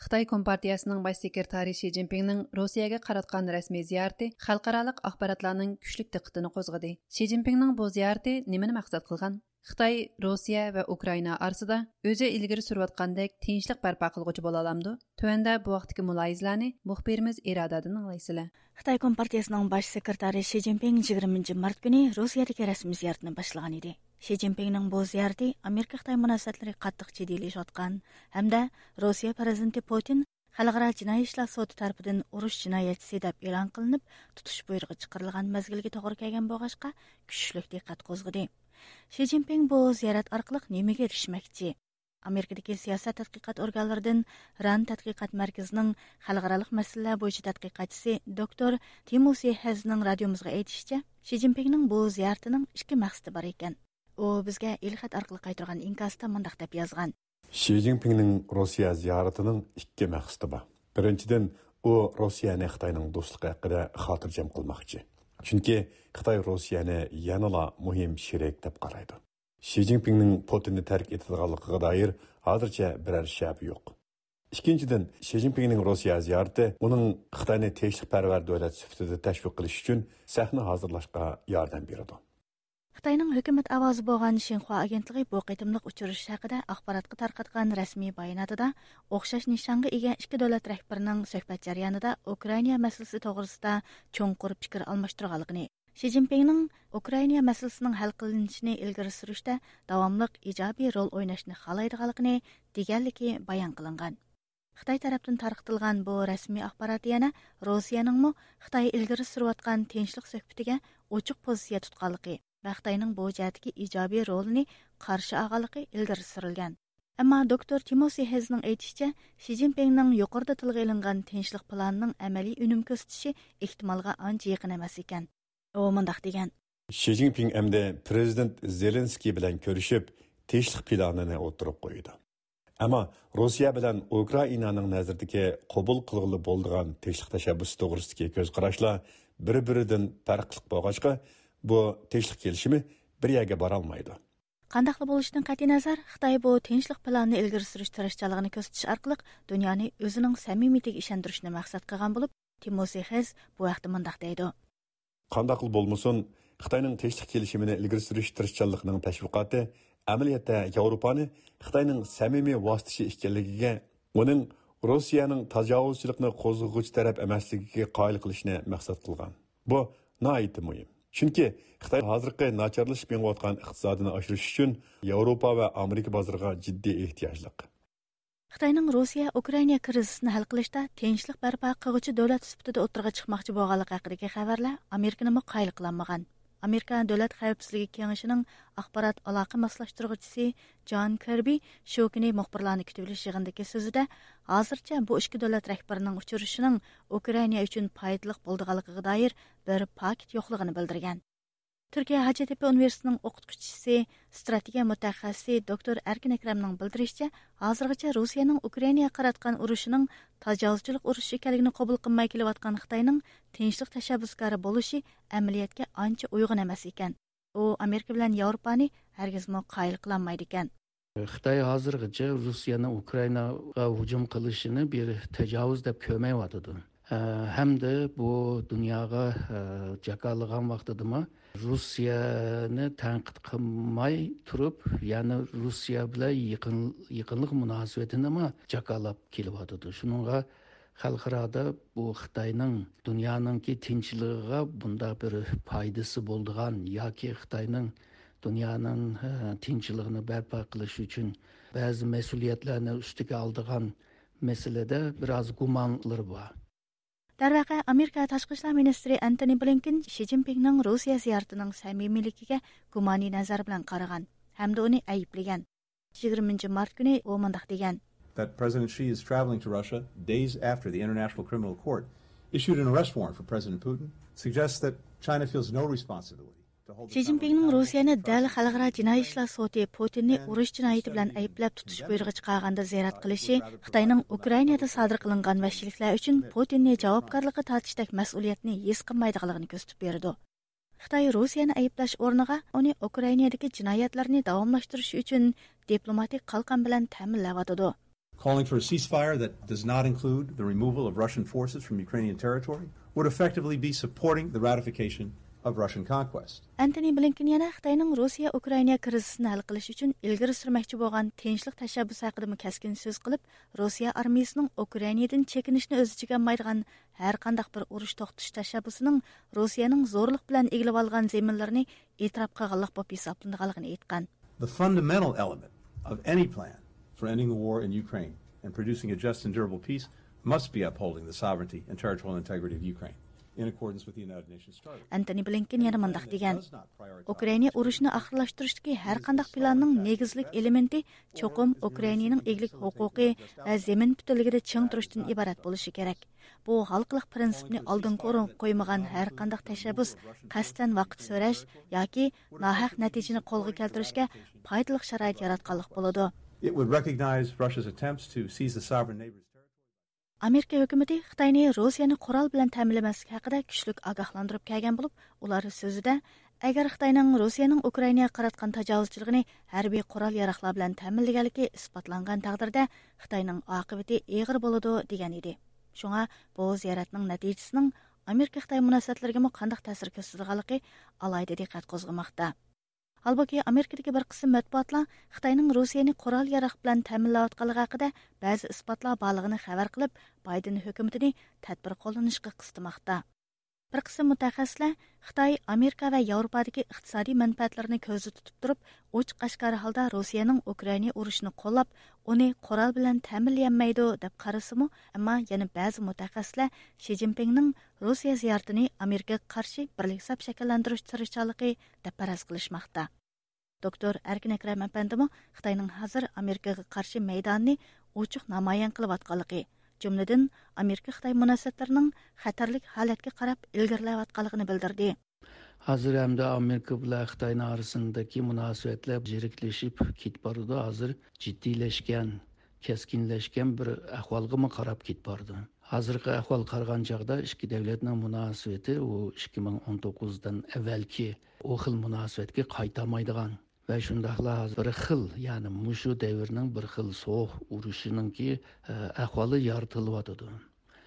خىتاي كومپارتىيەسىنىڭ باش سېكرېتارى شى جىنپىڭنىڭ روسىيەگە قاراتقان رەسمىي زىيارىتى خەلقئارالىق ئاخباراتلارنىڭ كۈچلۈك دىققىتىنى قوزغىدى. شى جىنپىڭنىڭ بۇ زىيارىتى نېمىنى مەقسەت قىلغان؟ خىتاي روسىيە ۋە ئۇكرائىنا ئارىسىدا ئۆزى ئىلگىرى سۈرۈۋاتقاندەك تىنچلىق بەرپا قىلغۇچى بولالامدۇ؟ تۆۋەندە بۇ ھەقتىكى مۇلاھىزىلەرنى مۇخبىرىمىز ئىرادەدىن ئاڭلايسىلەر. خىتاي كومپارتىيەسىنىڭ باش سېكرېتارى شى جىنپىڭ يىگىرمىنچى مارت كۈنى روسىيەدىكى رەسمىي زىيارىتىنى باشلىغان ئىدى. شى جىنپىڭنىڭ بۇ زىيارىتى ئامېرىكا-خىتاي مۇناسىۋەتلىرى قاتتىق جىددىيلىشىۋاتقان ھەمدە روسىيە پىرېزىدېنتى پۇتىن خەلقئارا جىنايى ئىشلار سوتى تەرىپىدىن ئۇرۇش جىنايەتچىسى دەپ ئېلان قىلىنىپ، تۇتۇش بۇيرۇقى چىقىرىلغان مەزگىلگە توغرا كەلگەن بولغاچقا، كۈچلۈك دىققەت قوزغىدى. شى جىنپىڭ بۇ زىيارەت ئارقىلىق نېمىگە ئېرىشمەكچى؟ ئامېرىكىدىكى سىياسەت تەتقىقات ئورگانلىرىدىن ران تەتقىقات مەركىزىنىڭ خەلقئارالىق مەسىلىلەر بويىچە تەتقىقاتچىسى دوكتور تىموسى ھېزنىڭ رادىيومىزغا ئېيتىشىچە، شى جىنپىڭنىڭ بۇ زىيارىتىنىڭ ئىككى مەقسىتى بار ئىكەن. ئۇ بىزگە ئېلخەت ئارقىلىق قايتۇرغان ئىنكاستا مۇنداق دەپ يازغان. شى جىنپىڭنىڭ روسىيە زىيارىتىنىڭ ئىككى مەقسىتى بار. بىرىنچىدىن، ئۇ روسىيەنى خىتاينىڭ دوستلۇقى ھەققىدە خاتىرجەم قىلماقچى. چۈنكى خىتاي روسىيەنى يەنىلا مۇھىم شېرىك دەپ قارايدۇ. شى جىنپىڭنىڭ پۇتىننى تەرك ئېتىدىغانلىقىغا دائىر ھازىرچە بىرەر شەپە يوق. ئىككىنچىدىن، شى جىنپىڭنىڭ روسىيە زىيارىتى ئۇنىڭ خىتاينى تىنچلىقپەرۋەر دۆلەت سۈپىتىدە تەشۋىق قىلىش ئۈچۈن سەھنە ھازىرلاشقا ياردەم بېرىدۇ. خىتاينىڭ ھۆكۈمەت ئاۋازى بولغان شىنخۇا ئاگېنتلىقى بۇ قېتىملىق ئۇچرىشىش ھەققىدە ئاخباراتقا تارقاتقان رەسمىي باياناتىدا ئوخشاش نىشانغا ئىگە ئىككى دۆلەت رەھبىرىنىڭ سۆھبەت جەريانىدا ئۇكرائىنا مەسىلىسى توغرىسىدا چوڭقۇر پىكىر ئالماشتۇرغانلىقىنى، شى جىنپىڭنىڭ ئۇكرائىنا مەسىلىسىنىڭ ھەل قىلىنىشىنى ئىلگىرى سۈرۈشتە داۋاملىق ئىجابىي رول ئويناشنى خالايدىغانلىقىنى دېگەنلىكى بايان قىلىنغان. خىتاي تەرەپتىن تارقىتىلغان بۇ رەسمىي ئاخبارات يەنە روسىيەنىڭمۇ خىتاي ئىلگىرى سۈرۈۋاتقان تىنچلىق سۆھبىتىگە ئوچۇق پوزىتسىيە تۇتقانلىقى ۋە خىتاينىڭ بۇ جەھەتتىكى ئىجابىي رولىنى قارشى ئالغانلىقى ئىلگىرى سۈرۈلگەن. ئەمما دوكتور تىموسى ھېزنىڭ ئېيتىشىچە، شى جىنپىڭنىڭ يۇقىرىدا تىلغا ئېلىنغان تىنچلىق پىلانىنىڭ ئەمەلىي ئۈنۈم كۆرسىتىشى ئېھتىمالغا ئانچە يېقىن ئەمەس ئىكەن. ئۇ مۇنداق دېگەن. شى جىنپىڭ ئەمدى پىرېزىدېنت زېلېنسكىي بىلەن كۆرۈشۈپ، تىنچلىق پىلانىنى ئوتتۇرىغا قويىدۇ. ئەمما روسىيە بىلەن ئۇكرائىنانىڭ نەزىرىدىكى قوبۇل قىلغىلى بولىدىغان تىنچلىق تەشەببۇسى توغرىسىدىكى كۆز قاراشلار بىر-بىرىدىن پەرقلىق بولغاچقا، بۇ تىنچلىق كېلىشىمى بىر يەرگە بارالمايدۇ. قانداقلا بولۇشىدىن قەتئىينەزەر، خىتاي بۇ تىنچلىق پىلانىنى ئىلگىرى سۈرۈش تىرىشچانلىقىنى كۆرسىتىش ئارقىلىق دۇنيانى ئۆزىنىڭ سەمىمىيىتىگە ئىشەندۈرۈشنى مەقسەت قىلغان بولۇپ، تىموسى خېز بۇ ھەقتە مۇنداق دەيدۇ. قانداقلا بولمىسۇن، خىتاينىڭ تىنچلىق كېلىشىمىنى ئىلگىرى سۈرۈش تىرىشچانلىقىنىڭ تەشۋىقاتى ئەمەلىيەتتە ياۋروپانى خىتاينىڭ سەمىمىي ۋاسىتىچى ئىكەنلىكىگە، ئۇنىڭ روسىيەنىڭ تاجاۋۇزچىلىقنى قوزغىغۇچى تەرەپ ئەمەسلىكىگە قايىل قىلىشنى مەقسەت قىلغان. بۇ ناھايىتى مۇھىم. چۈنكى خىتاي ھازىرقى ناچارلىشىپ مېڭىۋاتقان ئىقتىسادىنى ئاشۇرۇش ئۈچۈن ياۋروپا ۋە ئامېرىكا بازىرىغا جىددىي ئېھتىياجلىق. خىتاينىڭ روسىيە ئۇكرائىنا كىرىزىسىنى ھەل قىلىشتا تىنچلىق بەرپا قىلغۇچى دۆلەت سۈپىتىدە ئوتتۇرىغا چىقماقچى بولغانلىقى ھەققىدىكى خەۋەرلەر ئامېرىكىنىمۇ قايىل قىلالمىغان. ئامېرىكا دۆلەت خەۋپسىزلىكى كېڭىشىنىڭ ئاخبارات ئالاقە ماسلاشتۇرغۇچىسى جان كىربى شۇ كۈنى مۇخبىرلارنى كۈتۈۋېلىش يىغىنىدىكى سۆزىدە، ھازىرچە بۇ ئىككى دۆلەت رەھبىرىنىڭ ئۇچرىشىشىنىڭ ئۇكرائىنا ئۈچۈن پايدىلىق بولىدىغانلىقىغا دائىر بىر پاكىت يوقلۇقىنى بىلدۈرگەن. تۈركىيە ھاجەتتېپە ئۇنىۋېرسىتېتىنىڭ ئوقۇتقۇچىسى، ستراتېگىيە مۇتەخەسسىسى دوكتور ئەركىن ئەكرەمنىڭ بىلدۈرۈشىچە، ھازىرغىچە روسىيەنىڭ ئۇكرائىناغا قاراتقان ئۇرۇشىنىڭ تاجاۋۇزچىلىق ئۇرۇشى ئىكەنلىكىنى قوبۇل قىلماي كېلىۋاتقان خىتاينىڭ تىنچلىق تەشەببۇسكارى بولۇشى ئەمەلىيەتكە ئانچە ئۇيغۇن ئەمەس ئىكەن. ئۇ ئامېرىكا بىلەن ياۋروپانى ھەرگىزمۇ قايىل قىلالمايدىكەن. خىتاي ھازىرغىچە روسىيەنىڭ ئۇكرائىناغا ھۇجۇم قىلىشىنى بىر تاجاۋۇز دەپ كۆرمەيۋاتىدۇ. ئە، ھەمدە بۇ دۇنياغا، ئە، جاكارلىغان ۋاقتىدىمۇ روسىيەنى تەنقىد قىلماي تۇرۇپ، يەنە روسىيە بىلەن يېقىن، يېقىنلىق مۇناسىۋىتىنىمۇ جاكارلاپ كېلىۋاتىدۇ. شۇنىڭغا خەلقئارادا بۇ خىتاينىڭ دۇنيانىڭكى تىنچلىقىغا بۇنداق بىر پايدىسى بولىدىغان ياكى خىتاينىڭ دۇنيانىڭ، ھە، تىنچلىقىنى بەرپا قىلىش ئۈچۈن بەزى مەسئۇلىيەتلەرنى ئۈستىگە ئالىدىغان مەسىلىدە بىر ئاز گۇمانلىرى بار. دەرۋەقە، ئامېرىكا تاشقى ئىشلار مىنىستىرى ئەنتونى بلىنكېن شى جىنپىڭنىڭ روسىيە زىيارىتىنىڭ سەمىمىيلىكىگە گۇمانىي نەزەر بىلەن قارىغان ھەمدە ئۇنى ئەيىبلىگەن. يىگىرمىنچى مارت كۈنى ئۇ مۇنداق دېگەن. That President Xi is traveling to Russia days after the International Criminal Court issued an arrest warrant for President Putin suggests that China feels no responsibility to hold the شى جىنپىڭنىڭ روسىيەنى دەل خەلقئارا جىنايى ئىشلار سوتى پۇتىننى ئۇرۇش جىنايىتى بىلەن ئەيىبلەپ تۇتۇش بۇيرۇقى چىقارغاندا زىيارەت قىلىشى خىتاينىڭ ئۇكرائىنادا سادىر قىلىنغان ۋەھشىيلىكلەر ئۈچۈن پۇتىننى جاۋابكارلىققا تارتىشتەك مەسئۇلىيەتنى ھېس قىلمايدىغانلىقىنى كۆرسىتىپ بېرىدۇ. خىتاي روسىيەنى ئەيىبلەش ئورنىغا ئۇنى ئۇكرائىنادىكى جىنايەتلىرىنى داۋاملاشتۇرۇش ئۈچۈن دىپلوماتىك قالقان بىلەن تەمىنلەۋاتىدۇ. Calling for a ceasefire that does not include the removal of Russian forces from Ukrainian territory would effectively be supporting the ratification of Russian conquest. ئەنتونى بلىنكېن يەنە خىتاينىڭ روسىيە ئۇكرائىنا كىرىزىسىنى ھەل قىلىش ئۈچۈن ئىلگىرى سۈرمەكچى بولغان تىنچلىق تەشەببۇسى ھەققىدىمۇ كەسكىن سۆز قىلىپ، روسىيە ئارمىيىسىنىڭ ئۇكرائىنادىن چېكىنىشنى ئۆز ئىچىگە ئالمايدىغان ھەر قانداق بىر ئۇرۇش توختىتىش تەشەببۇسىنىڭ روسىيەنىڭ زورلۇق بىلەن ئىگىلىۋالغان زېمىنلىرىنى ئېتىراپ قىلغانلىق بولۇپ ھېسابلىنىدىغانلىقىنى ئېيتقان. The fundamental element of any plan for ending the war in Ukraine and producing a just and durable peace must be upholding the sovereignty and territorial integrity of Ukraine in accordance with the United Nations Charter. ئەنتونى بلىنكېن يەنە مۇنداق دېگەن. ئۇكرائىنا ئۇرۇشىنى ئاخىرلاشتۇرۇشتىكى ھەر قانداق پىلاننىڭ نېگىزلىك ئېلېمېنتى چوقۇم ئۇكرائىنانىڭ ئىگىلىك ھوقۇقى ۋە زېمىن پۈتۈنلۈكىدە چىڭ تۇرۇشتىن ئىبارەت بولۇشى كېرەك. بۇ ھالقىلىق پىرىنسىپنى ئالدىنقى ئورۇنغا قويمىغان ھەر قانداق تەشەببۇس قەستەن ۋاقىت سۆرەش ياكى ناھەق نەتىجىنى قولغا كەلتۈرۈشكە پايدىلىق شارائىت ياراتقانلىق بولىدۇ. It would recognize Russia's attempts to seize the sovereign neighbor's territory. ئامېرىكا ھۆكۈمىتى خىتاينى روسىيەنى قورال بىلەن تەمىنلىمەسلىك ھەققىدە كۈچلۈك ئاگاھلاندۇرۇپ كەلگەن بولۇپ، ئۇلار سۆزىدە، ئەگەر خىتاينىڭ روسىيەنىڭ ئۇكرائىناغا قاراتقان تاجاۋۇزچىلىقىنى ھەربىي قورال ياراغلار بىلەن تەمىنلىگەنلىكى ئىسپاتلانغان تەقدىردە، خىتاينىڭ ئاقىۋىتى ئېغىر بولىدۇ، دېگەن ئىدى. شۇڭا بۇ زىيارەتنىڭ نەتىجىسىنىڭ ئامېرىكا خىتاي مۇناسىۋەتلىرىگىمۇ قانداق تەسىر كۆرسىتىدىغانلىقى ئالاھىدە دىققەت قوزغىماقتا. ھالبۇكى، ئامېرىكىدىكى بىر قىسىم مەتبۇئاتلار خىتاينىڭ روسىيەنى قورال ياراغ بىلەن تەمىنلەۋاتقانلىقى ھەققىدە بەزى ئىسپاتلار بارلىقىنى خەۋەر قىلىپ، بايدېن ھۆكۈمىتىنى تەدبىر قوللىنىشقا قىستىماقتا. بىر قىسىم مۇتەخەسسىسلەر خىتاي ئامېرىكا ۋە ياۋروپادىكى ئىقتىسادىي مەنپەئەتلىرىنى كۆزدە تۇتۇپ تۇرۇپ، ئوچۇق ئاشكارا ھالدا روسىيەنىڭ ئۇكرائىنا ئۇرۇشىنى قوللاپ، ئۇنى قورال بىلەن تەمىنلىيەلمەيدۇ، دەپ قارىسىمۇ، ئەمما يەنە بەزى مۇتەخەسسىسلەر شى جىنپىڭنىڭ روسىيە زىيارىتىنى ئامېرىكىغا قارشى بىرلىك سەپ شەكىللەندۈرۈش تىرىشچانلىقى دەپ پەرەز قىلىشماقتا. دوكتور ئەركىن ئەكرەم ئەپەندىمۇ خىتاينىڭ ھازىر ئامېرىكىغا قارشى مەيدانىنى ئوچۇق نامايان قىلىۋاتقانلىقى، جۈملىدىن ئامېرىكا خىتاي مۇناسىۋەتلىرىنىڭ خەتەرلىك ھالەتكە قاراپ ئىلگىرىلەۋاتقانلىقىنى بىلدۈردى. ھازىر ھەمدە ئامېرىكا بىلەن خىتاينىڭ ئارىسىندىكى مۇناسىۋەتلەر يىرىكلىشىپ كېتىپ بارىدۇ. ھازىر جىددىيلەشكەن كەسكىنلەشكەن بىر ئەھۋالغىمۇ قاراپ كېتىپ بارىدۇ. ھازىرقى ئەھۋال قارىغان چاغدا ئىككى دۆلەتنىڭ مۇناسىۋىتى ئۇ ئىككى مىڭ ئون توققۇزدىن ئەۋۋەلكى ئۇ خىل مۇناسىۋەتكە قايتالمايدىغان ۋە شۇنداقلا ھازىر بىر خىل، يەنى مۇشۇ دەۋرنىڭ بىر خىل سوغۇق ئۇرۇشىنىڭكى، ئە، ئەھۋالى يارىتىلىۋاتىدۇ.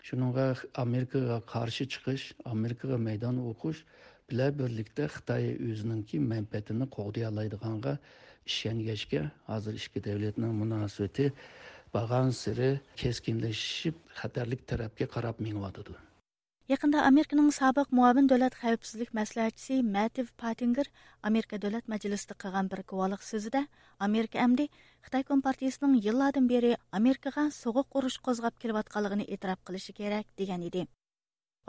شۇنىڭغا ئامېرىكىغا قارشى چىقىش، ئامېرىكىغا مەيدان ئوقۇش بىلەن بىرلىكتە خىتاي ئۆزىنىڭكى مەنپەئەتىنى قوغدىيالايدىغانغا ئىشەنگەچكە، ھازىر ئىككى دەۋلەتنىڭ مۇناسىۋىتى بارغانسېرى كەسكىنلىشىپ، خەتەرلىك تەرەپكە قاراپ مېڭىۋاتىدۇ. يېقىندا ئامېرىكىنىڭ سابىق مۇئاۋىن دۆلەت خەۋپسىزلىك مەسلىھەتچىسى مەتىۋ پاتىنگېر ئامېرىكا دۆلەت مەجلىسىدە قىلغان بىر گۇۋاھلىق سۆزىدە، ئامېرىكا ئەمدى خىتاي كومپارتىيىسىنىڭ يىللاردىن بېرى ئامېرىكىغا سوغۇق ئۇرۇش قوزغاپ كېلىۋاتقانلىقىنى ئېتىراپ قىلىشى كېرەك، دېگەن ئىدى.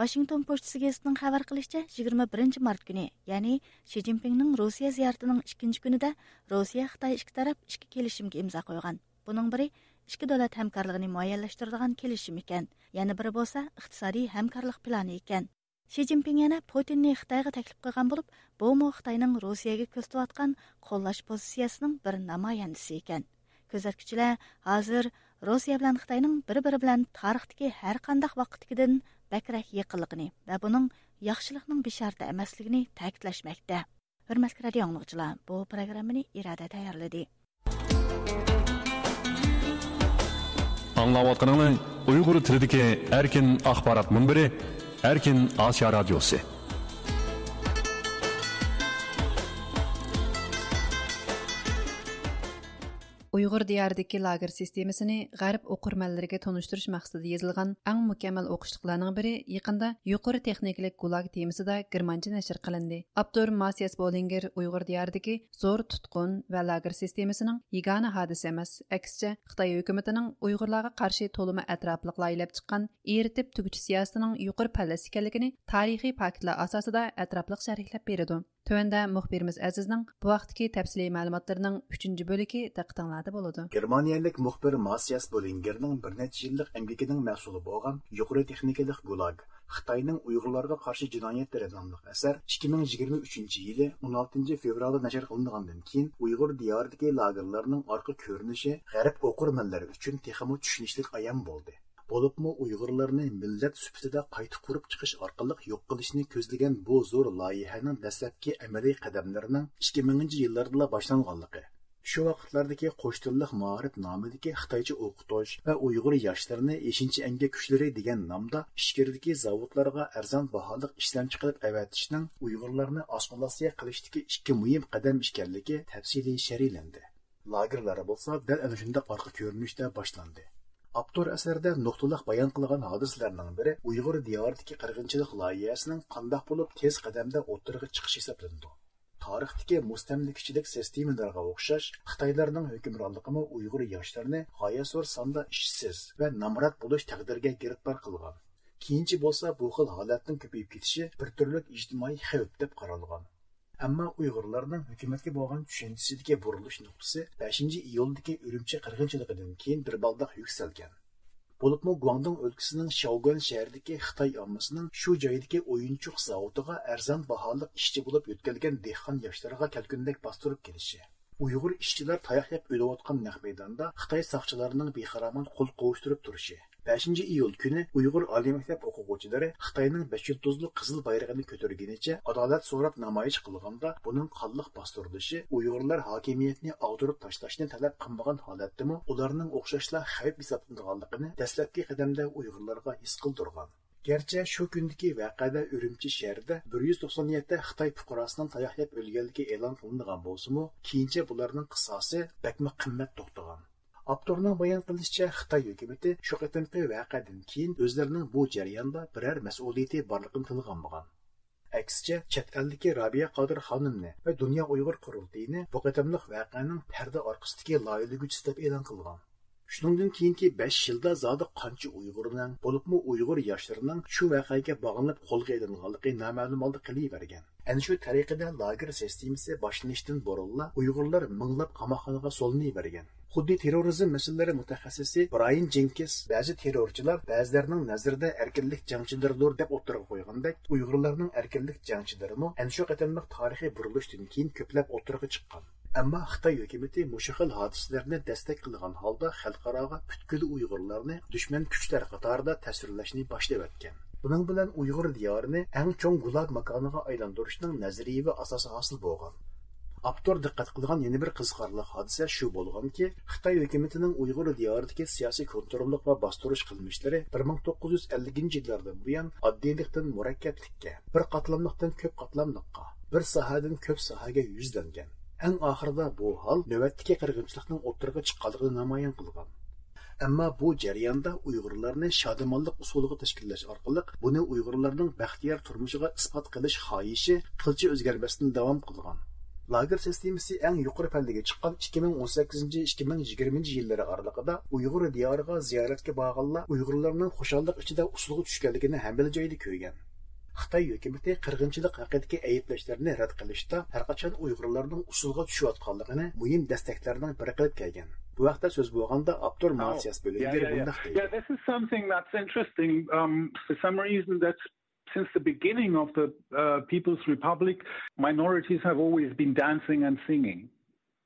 ۋاشىنگتون پوچتىسى گېزىتىنىڭ خەۋەر قىلىشىچە، يىگىرمە بىرىنچى مارت كۈنى، يەنى شى جىنپىڭنىڭ روسىيە زىيارىتىنىڭ ئىككىنچى كۈنىدە روسىيە خىتاي ئىككى تەرەپ ئىككى كېلىشىمگە ئىمزا قويغان. بۇنىڭ بىرى ئىككى دۆلەت ھەمكارلىقىنى مۇئەييەنلەشتۈرىدىغان كېلىشىم ئىكەن، يەنە بىرى بولسا ئىقتىسادىي ھەمكارلىق پىلانى ئىكەن. شى جىنپىڭ يەنە پۇتىننى خىتايغا تەكلىپ قىلغان بولۇپ، بۇمۇ خىتاينىڭ روسىيەگە كۆرسىتىۋاتقان قوللاش پوزىتسىيەسىنىڭ بىر نامايەندىسى ئىكەن. كۆزەتكۈچىلەر ھازىر روسىيە بىلەن خىتاينىڭ بىر-بىرى بىلەن تارىختىكى ھەر قانداق ۋاقىتتىكىدىن بەكرەك يېقىنلىقىنى ۋە بۇنىڭ ياخشىلىقنىڭ بېشارىتى ئەمەسلىكىنى تەكىتلەشمەكتە. ھۆرمەتلىك رادىئو ئاڭلىغۇچىلار، بۇ پروگراممىنى ئىرادە تەييارلىدى. ئاڭلاۋاتقىنىڭلار ئۇيغۇر تىلىدىكى ئەركىن ئاخبارات مۇنبىرى، ئەركىن ئاسىيا رادىيوسى. ئۇيغۇر دىيارىدىكى لاگېر سىستېمىسىنى غەرب ئوقۇرمەنلىرىگە تونۇشتۇرۇش مەقسىتىدە يېزىلغان ئەڭ مۇكەممەل ئوقۇشلۇقلارنىڭ بىرى يېقىندا يۇقىرى تېخنىكىلىق گۇلاگ تېمىسىدا گېرمانچە نەشر قىلىندى. ئاپتور ماسىياس بولىنگېر ئۇيغۇر دىيارىدىكى زور تۇتقۇن ۋە لاگېر سىستېمىسىنىڭ يېگانە ھادىسە ئەمەس، ئەكسىچە، خىتاي ھۆكۈمىتىنىڭ ئۇيغۇرلارغا قارشى تولىمۇ ئەتراپلىقلا ئېلىپ چىققان ئېرىتىپ تۈگىتىش سىياسىتىنىڭ يۇقىرى پەللىسى ئىكەنلىكىنى تارىخىي پاكىتلار ئاساسىدا ئەتراپلىق شەرھلەپ بېرىدۇ. تۆۋەندە مۇخبىرىمىز ئەزىزنىڭ بۇ ھەقتىكى تەپسىلىي مەلۇماتلىرىنىڭ ئۈچىنچى بۆلىكى دىققىتىڭلاردا بولىدۇ. گېرمانىيەلىك مۇخبىر ماسىياس بولىنگېرنىڭ بىر نەچچە يىللىق ئەمگىكىنىڭ مەھسۇلى بولغان يۇقىرى تېخنىكىلىق گۇلاگ، خىتاينىڭ ئۇيغۇرلارغا قارشى جىنايەتلىرى ناملىق ئەسەر ئىككى مىڭ يىگىرمە ئۈچىنچى يىلى ئون ئالتىنچى فېۋرالدا نەشر قىلىنغاندىن كېيىن، ئۇيغۇر دىيارىدىكى لاگېرلارنىڭ ئارقا كۆرۈنۈشى غەرب ئوقۇرمەنلىرى ئۈچۈن تېخىمۇ چۈشىنىشلىك ئايان بولدى. بولۇپمۇ ئۇيغۇرلارنى مىللەت سۈپىتىدە قايتا قۇرۇپ چىقىش ئارقىلىق يوق قىلىشنى كۆزلىگەن بۇ زور لايىھەنىڭ دەسلەپكى ئەمەلىي قەدەملىرىنىڭ ئىككى مىڭىنچى يىللاردىلا باشلانغانلىقى، شۇ ۋاقىتلاردىكى قوش تىللىق مائارىپ نامىدىكى خىتايچە ئوقۇتۇش ۋە ئۇيغۇر ياشلىرىنى ئېشىنچا ئەمگەك كۈچلىرى دېگەن نامدا ئىچكىرىدىكى زاۋۇتلارغا ئەرزان باھالىق ئىشلەمچى قىلىپ ئەۋەتىشنىڭ ئۇيغۇرلارنى ئاسسىمىلياتسىيە قىلىشتىكى ئىككى مۇھىم قەدەم ئىكەنلىكى تەپسىلىي شەرھلەندى. لاگېرلار بولسا دەل ئەنە شۇنداق ئارقا كۆرۈنۈشتە باشلاندى. ئاپتور ئەسەردە نۇقتىلىق بايان قىلغان ھادىسىلەرنىڭ بىرى ئۇيغۇر دىيارىدىكى قىرغىنچىلىق لايىھەسىنىڭ قانداق بولۇپ تېز قەدەمدە ئوتتۇرىغا چىقىشى ھېسابلىنىدۇ. تارىختىكى مۇستەملىكىچىلىك سىستېمىلىرىغا ئوخشاش، خىتايلارنىڭ ھۆكۈمرانلىقىمۇ ئۇيغۇر ياشلىرىنى غايەت زور ساندا ئىشسىز ۋە نامرات بولۇش تەقدىرىگە گىرىپتار قىلغان. كېيىنچە بولسا بۇ خىل ھالەتنىڭ كۆپىيىپ كېتىشى بىر تۈرلۈك ئىجتىمائىي خەۋپ دەپ قارالغان. ئەمما ئۇيغۇرلارنىڭ ھۆكۈمەتكە بولغان چۈشەنچىسىدىكى بۇرۇلۇش نۇقتىسى بەشىنچى ئىيۇلدىكى ئۈرۈمچى قىرغىنچىلىقىدىن كېيىن بىر بالداق يۈكسەلگەن. بولۇپمۇ گۇاڭدۇڭ ئۆلكىسىنىڭ شياۋگۈەن شەھىرىدىكى خىتاي ئاممىسىنىڭ شۇ جايدىكى ئويۇنچۇق زاۋۇتىغا ئەرزان باھالىق ئىشچى بولۇپ يۆتكەلگەن دېھقان ياشلىرىغا كەلكۈندەك باستۇرۇپ كېلىشى، ئۇيغۇر ئىشچىلار تاياق يەپ ئۆلۈۋاتقان نەق مەيداندا خىتاي ساقچىلارنىڭ بىخىرامان قول قوۋۇشتۇرۇپ تۇرۇشى، بەشىنچى ئىيۇل كۈنى ئۇيغۇر ئالىي مەكتەپ ئوقۇغۇچىلىرى خىتاينىڭ بەش يۇلتۇزلۇق قىزىل بايرىقىنى كۆتۈرگىنىچە ئادالەت سوراپ نامايىش قىلغاندا، بۇنىڭ قانلىق باستۇرۇلۇشى، ئۇيغۇرلار ھاكىمىيەتنى ئاغدۇرۇپ تاشلاشنى تەلەپ قىلمىغان ھالەتتىمۇ ئۇلارنىڭ ئوخشاشلا خەۋپ ھېسابلىنىدىغانلىقىنى دەسلەپكى قەدەمدە ئۇيغۇرلارغا ھېس قىلدۇرغان. گەرچە شۇ كۈندىكى ۋەقەدە ئۈرۈمچى شەھىرىدە بىر يۈز توقسان يەتتە خىتاي پۇقراسىنىڭ تاياق يەپ ئۆلگەنلىكى ئېلان قىلىنغان بولسىمۇ، كېيىنچە بۇلارنىڭ قىساسى بەكمۇ قىممەت توختىغان. ئاپتورنىڭ بايان قىلىشىچە، خىتاي ھۆكۈمىتى شۇ قېتىمقى ۋەقەدىن كېيىن ئۆزلىرىنىڭ بۇ جەرياندا بىرەر مەسئۇلىيىتى بارلىقىنى تىلغا ئالمىغان. ئەكسىچە، چەت ئەلدىكى رابىيە قادىر خانىمنى ۋە دۇنيا ئۇيغۇر قۇرۇلتىيىنى بۇ قېتىملىق ۋەقەنىڭ پەردە ئارقىسىدىكى لايىھەلىگۈچىسى دەپ ئېلان قىلغان. شۇنىڭدىن كېيىنكى بەش يىلدا زادى قانچە ئۇيغۇرنىڭ، بولۇپمۇ ئۇيغۇر ياشلىرىنىڭ شۇ ۋەقەگە باغلىنىپ قولغا ئېلىنغانلىقى نامەلۇم ھالدا قېلىۋەرگەن. ئەنە شۇ تەرىقىدە لاگېر سىستېمىسى باشلىنىشتىن بۇرۇنلا ئۇيغۇرلار مىڭلاپ قاماقخانىغا سولىنىۋەرگەن. خۇددى تېررورىزم مەسىلىلىرى مۇتەخەسسىسى برايان جېنكىنس بەزى تېررورچىلار بەزىلەرنىڭ نەزىرىدە ئەركىنلىك جەڭچىلىرىدۇر دەپ ئوتتۇرىغا قويغاندەك، ئۇيغۇرلارنىڭ ئەركىنلىك جەڭچىلىرىمۇ ئەنە شۇ قېتىملىق تارىخىي بۇرۇلۇشتىن كېيىن كۆپلەپ ئوتتۇرىغا چىققان. ئەمما خىتاي ھۆكۈمىتى مۇشۇ خىل ھادىسىلەرنى دەستەك قىلغان ھالدا خەلقئاراغا پۈتكۈل ئۇيغۇرلارنى دۈشمەن كۈچلەر قاتارىدا تەسۋىرلەشنى باشلىۋەتكەن. بۇنىڭ بىلەن ئۇيغۇر دىيارىنى ئەڭ چوڭ گۇلاگ ماكانىغا ئايلاندۇرۇشنىڭ نەزەرىيىۋى ئاساسى ھاسىل بولغان. ئاپتور دىققەت قىلغان يەنە بىر قىزىقارلىق ھادىسە شۇ بولغانكى، خىتاي ھۆكۈمىتىنىڭ ئۇيغۇر دىيارىدىكى سىياسىي كونتروللۇق ۋە باستۇرۇش قىلمىشلىرى بىر مىڭ توققۇز يۈز ئەللىكىنچى يىللاردىن بۇيان ئاددىيلىقتىن مۇرەككەپلىككە، بىر قاتلاملىقتىن كۆپ قاتلاملىققا، بىر ساھەدىن كۆپ ساھەگە يۈزلەنگەن. ئەڭ ئاخىرىدا بۇ ھال نۆۋەتتىكى قىرغىنچىلىقنىڭ ئوتتۇرىغا چىققانلىقىنى نامايان قىلغان. ئەمما بۇ جەرياندا ئۇيغۇرلارنى شادىمانلىق ئۇسۇلىغا تەشكىللەش ئارقىلىق بۇنى ئۇيغۇرلارنىڭ بەختىيار تۇرمۇشىغا ئىسپات قىلىش خاھىشى قىلچە ئۆزگەرمەستىن داۋام قىلغان. لاگېر سىستېمىسى ئەڭ يۇقىرى پەللىگە چىققان ئىككى مىڭ ئون سەككىزىنچى، ئىككى مىڭ يىگىرمىنچى يىللىرى ئارىلىقىدا ئۇيغۇر دىيارىغا زىيارەتكە بارغانلار ئۇيغۇرلارنىڭ خۇشاللىق ئىچىدە ئۇسسۇلغا چۈشكەنلىكىنى ھەممىلا جايدا كۆرگەن. خىتاي ھۆكۈمىتى قىرغىنچىلىق ھەققىدىكى ئەيىبلەشلەرنى رەت قىلىشتا ھەرقاچان ئۇيغۇرلارنىڭ ئۇسسۇلغا چۈشۈۋاتقانلىقىنى مۇھىم دەستەكلەرنىڭ بىرى قىلىپ كەلگەن. بۇ ھەقتە سۆز بولغاندا ئاپتور ماتىياس بۆلۈنگېر بۇنداق دەيدۇ. Yeah, this is something that's interesting. Um, for some reason, that's since the beginning of the uh, People's Republic, minorities have always been dancing and singing.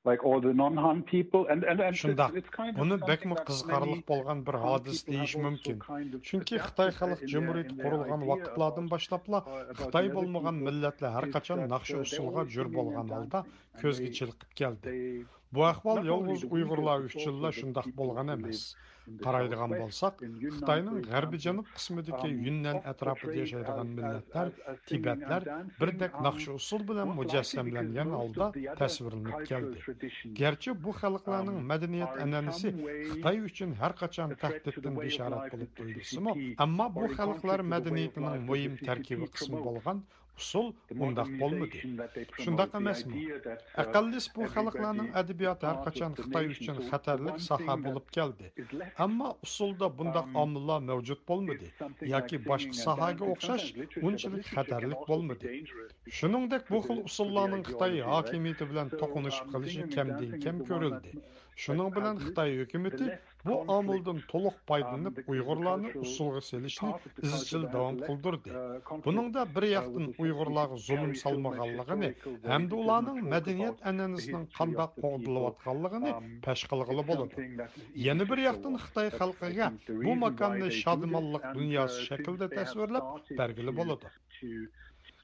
Like all the non-Han people, and, and, and it's, شۇنداق، it's kind of بۇنى something بەكمۇ that قىزىقارلىق many بولغان بىر Han ھادىسە people دېيىش have also مۇمكىن. kind of چۈنكى adapted خىتاي uh, خەلق in their, جۇمھۇرىيىتى in their قۇرۇلغان idea ۋاقىتلاردىن of, باشلاپلا uh, about خىتاي the other بولمىغان people مىللەتلەر ھەر is قاچان that ناخشا uh, ئۇسسۇلغا they're جۆر always بولغان singing ھالدا and كۆزگە they, چېلىقىپ كەلدى. they بۇ ئەھۋال not only يالغۇز the ئۇيغۇرلار Uyghurs, it's ئۈچۈنلا also the شۇنداق people بولغان who ئەمەس. live in the قارايدىغان southwest, بولساق، in Yunnan, for خىتاينىڭ example, غەربىي جەنۇب قىسمىدىكى um, يۈننەن of- ئەتراپىدا operate ياشايدىغان as, مىللەتلەر، as, as singing تىبەتلەر and dancing بىردەك um, ناخشا ئۇسسۇل بىلەن most likely مۇجەسسەملەنگەن because most ھالدا of the other تەسۋىرلىنىپ cultural كەلدى. traditions گەرچە بۇ خەلقلەرنىڭ um, مەدەنىيەت are in ئەنئەنىسى some way خىتاي ئۈچۈن ھەر قاچان affected to the تەھدىتتىن way of بېشارەت life بولۇپ that the تۇيۇلسىمۇ، C C P ئەمما بۇ or in خەلقلەر contrary to the way of مەدەنىيىتىنىڭ life that مۇھىم the C C P تەركىبىي قىسمى promote. بولغان ئۇسسۇل The ئۇنداق بولمىدى. modernization that they promote, شۇنداق the ئەمەسمۇ؟ idea that uh, ئەقەللىس بۇ every خەلقلەرنىڭ body ئەدەبىياتى ھەر part قاچان of the خىتاي nation. ئۈچۈن So خەتەرلىك one ساھە thing that بولۇپ كەلدى. is left ئەمما ئۇسسۇلدا بۇنداق um, ئامىللار مەۋجۇت بولمىدى is something ياكى like باشقا singing and ساھەگە dancing. ئوخشاش Sometimes literature, but ئۇنچىلىك literature can خەتەرلىك also be بولمىدى. dangerous. شۇنىڭدەك بۇ To خىل the, to the ئۇسسۇللارنىڭ خىتاي ideology, right? ھاكىمىيىتى بىلەن So, توقۇنۇشۇپ um, قېلىشى singing and كەمدىن dancing كەم is the one كۆرۈلدى. that شۇنىڭ بىلەن has خىتاي ھۆكۈمىتى the less بۇ conflict. ئامىلدىن تولۇق پايدىلىنىپ، Um, the, the ئۇيغۇرلارنى cultural ئۇسسۇلغا سېلىشنى part of the ئىزچىل culture that داۋام has the less قىلدۇردى. uh, conflict بۇنىڭدا بىر uh, ياقتىن with the ئۇيغۇرلارغا C C P زۇلۇم carries on سالمىغانلىقىنى historical ھەمدە values ئۇلارنىڭ and مەدەنىيەت talk about ئەنئەنىسىنىڭ the history قانداق of the people. قوغدىلىۋاتقانلىقىنى Um, پەش قىلغىلى it's بولىدۇ. something that is يەنە بىر easy to ياقتىن ignore. خىتاي But I خەلقىگە think the بۇ reason why ماكاننى they do شادىمانلىق this, and, دۇنياسى uh, شەكلىدە since they have تەسۋىرلەپ started بەرگىلى to, بولىدۇ. to, to,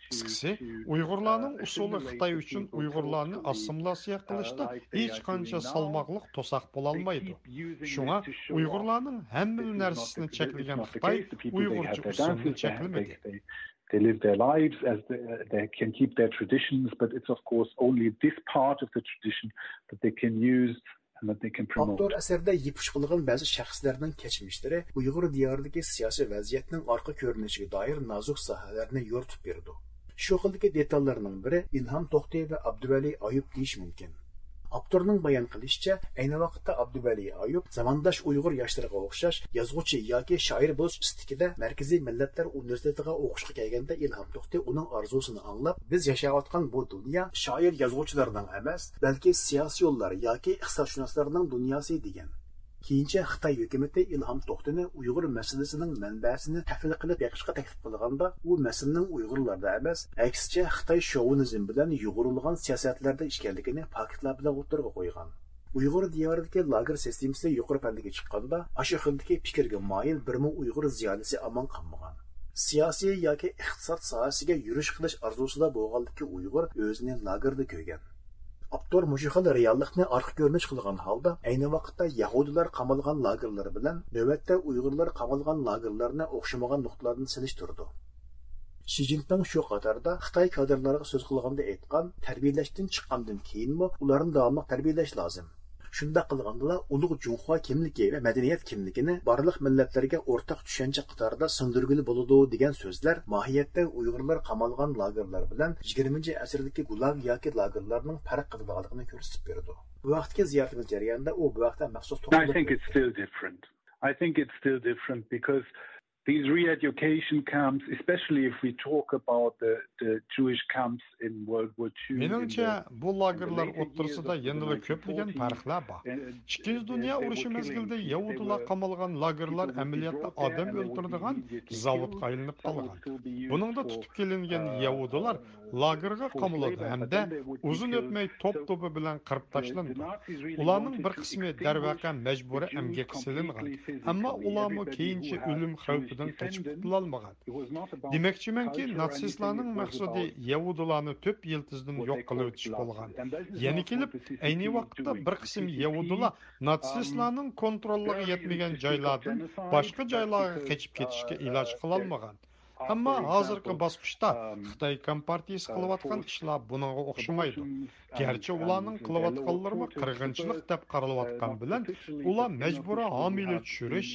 قىسقىسى، to, ئۇيغۇرلارنىڭ uh, ئۇسسۇلى assimilate خىتاي the ئۈچۈن people ئۇيغۇرلارنى culturally, ئاسسىمىلياتسىيە uh, قىلىشتا like they are ھېچقانچە doing now. سالماقلىق توساق They بولالمايدۇ. keep using شۇڭا this to show off. ئۇيغۇرلارنىڭ ھەممىلا This is not نەرسىسىنى the, this is چەكلىگەن not the خىتاي case. The people, they ئۇيغۇرچە have their ئۇسسۇلنى dances, they have, they, چەكلىمىدى. they, they live their lives as they, they can keep their traditions, but it's of course only this part of the tradition that they can use and that they can promote. ئاپتور ئەسەردە يىپ ئۇچ قىلغان بەزى شەخسلەرنىڭ كەچمىشلىرى ئۇيغۇر دىيارىدىكى سىياسىي ۋەزىيەتنىڭ ئارقا كۆرۈنۈشىگە دائىر نازۇك ساھەلەرنى يورۇتۇپ بېرىدۇ. شۇ خىلدىكى دېتاللارنىڭ بىرى ئىلھام توختى ۋە ئابدۇۋەلى ئايۇپ دېيىش مۇمكىن. ئاپتورنىڭ بايان قىلىشىچە، ئەينى ۋاقىتتا ئابدۇۋەلى ئايۇپ زامانداش ئۇيغۇر ياشلىرىغا ئوخشاش يازغۇچى ياكى شائىر بولۇش ئىستىكىدە مەركىزىي مىللەتلەر ئۇنىۋېرسىتېتىغا ئوقۇشقا كەلگەندە ئىلھام توختى ئۇنىڭ ئارزۇسىنى ئاڭلاپ، بىز ياشاۋاتقان بۇ دۇنيا شائىر-يازغۇچىلارنىڭ ئەمەس، بەلكى سىياسىيونلار ياكى ئىقتىسادشۇناسلارنىڭ دۇنياسى دېگەن. كېيىنچە خىتاي ھۆكۈمىتى ئىلھام توختىنى ئۇيغۇر مەسىلىسىنىڭ مەنبەسىنى تەھلىل قىلىپ بېقىشقا تەكلىپ قىلغاندا، ئۇ مەسىلىنىڭ ئۇيغۇرلاردا ئەمەس، ئەكسىچە خىتاي شوۋىنىزم بىلەن يۇغۇرۇلغان سىياسەتلەردە ئىكەنلىكىنى پاكىتلار بىلەن ئوتتۇرىغا قويغان. ئۇيغۇر دىيارىدىكى لاگېر سىستېمىسى يۇقىرى پەللىگە چىققاندا، ئاشۇ خىلدىكى پىكىرگە مايىل بىرمۇ ئۇيغۇر زىيالىيسى ئامان قالمىغان. سىياسىي ياكى ئىقتىساد ساھەسىگە يۈرۈش قىلىش ئارزۇسىدا بولغانلىكى ئۇيغۇر ئۆزىنى لاگېردا كۆرگەن. ئاپتور مۇشۇ خىل رېئاللىقنى ئارقا كۆرۈنۈش قىلغان ھالدا، ئەينى ۋاقىتتا يەھۇدىيلار قامالغان لاگېرلىرى بىلەن نۆۋەتتە ئۇيغۇرلار قامالغان لاگېرلىرىنى ئوخشىمىغان نۇقتىلاردىن سېلىشتۇرىدۇ. شى جىنپىڭ شۇ قاتاردا خىتاي كادىرلارغا سۆز قىلغاندا ئېيتقان، تەربىيەلەشتىن چىققاندىن كېيىنمۇ ئۇلارنى داۋاملىق تەربىيەلەش لازىم. شۇنداق قىلغاندىلا ئۇلۇغ جۇڭخۇا كىملىكى ۋە مەدەنىيەت كىملىكىنى بارلىق مىللەتلەرگە ئورتاق چۈشەنچە قاتارىدا سىڭدۈرگىلى بولىدۇ دېگەن سۆزلەر ماھىيەتتە ئۇيغۇرلار قامالغان لاگېرلار بىلەن يىگىرمىنچى ئەسىردىكى گۇلاگ ياكى لاگېرلارنىڭ پەرق قىلىدىغانلىقىنى كۆرسىتىپ بېرىدۇ. بۇ ھەقتىكى زىيارىتىمىز جەريانىدا ئۇ بۇ ھەقتە مەخسۇس I توختىلىپ think it's ئۆتتى. Still different. I think it's still different because These re-education camps, especially if we talk about the, the Jewish camps in World War two, in مېنىڭچە، the, بۇ in the لاگېرلار later years ئوتتۇرىسىدا of the يەنىلا كۆپلىگەن nineteen forties, پەرقلەر بار. uh, ئىككىنچى دۇنيا ئۇرۇشى مەزگىلىدە يەھۇدىيلار قامالغان لاگېرلار ئەمەلىيەتتە ئادەم ئۆلتۈرىدىغان زاۋۇتقا ئايلىنىپ قالغان. بۇنىڭدا تۇتۇپ كېلىنگەن يەھۇدىيلار لاگېرغا قامىلىدۇ ھەمدە ئۇزۇن ئۆتمەي توپ توپى بىلەن قىرىپ تاشلىنىدۇ. ئۇلارنىڭ بىر قىسمى دەرۋەقە مەجبۇرىي ئەمگەككە سېلىنغان، ئەمما ئۇلارمۇ كېيىنچە ئۆلۈم خەۋپىدىن قېچىپ قۇتۇلالمىغان. دېمەكچىمەنكى، ناتسىستلارنىڭ مەقسىتى يەھۇدىيلارنى تۆپ يىلتىزىدىن يوق قىلىۋېتىش بولغان. يەنە كېلىپ، ئەينى ۋاقىتتا بىر قىسىم يەھۇدىيلار ناتسىستلارنىڭ كونتروللۇقىغا يەتمىگەن جايلاردىن باشقا جايلارغا قېچىپ كېتىشكە ئىلاج قىلالمىغان. ئەمما ھازىرقى باسقۇچتا خىتاي كومپارتىيىسى قىلىۋاتقان ئىشلار بۇنىڭغا ئوخشىمايدۇ. گەرچە ئۇلارنىڭ قىلىۋاتقانلىرىمۇ قىرغىنچىلىق دەپ قارىلىۋاتقان بىلەن، ئۇلار مەجبۇرىي ھامىلە چۈشۈرۈش،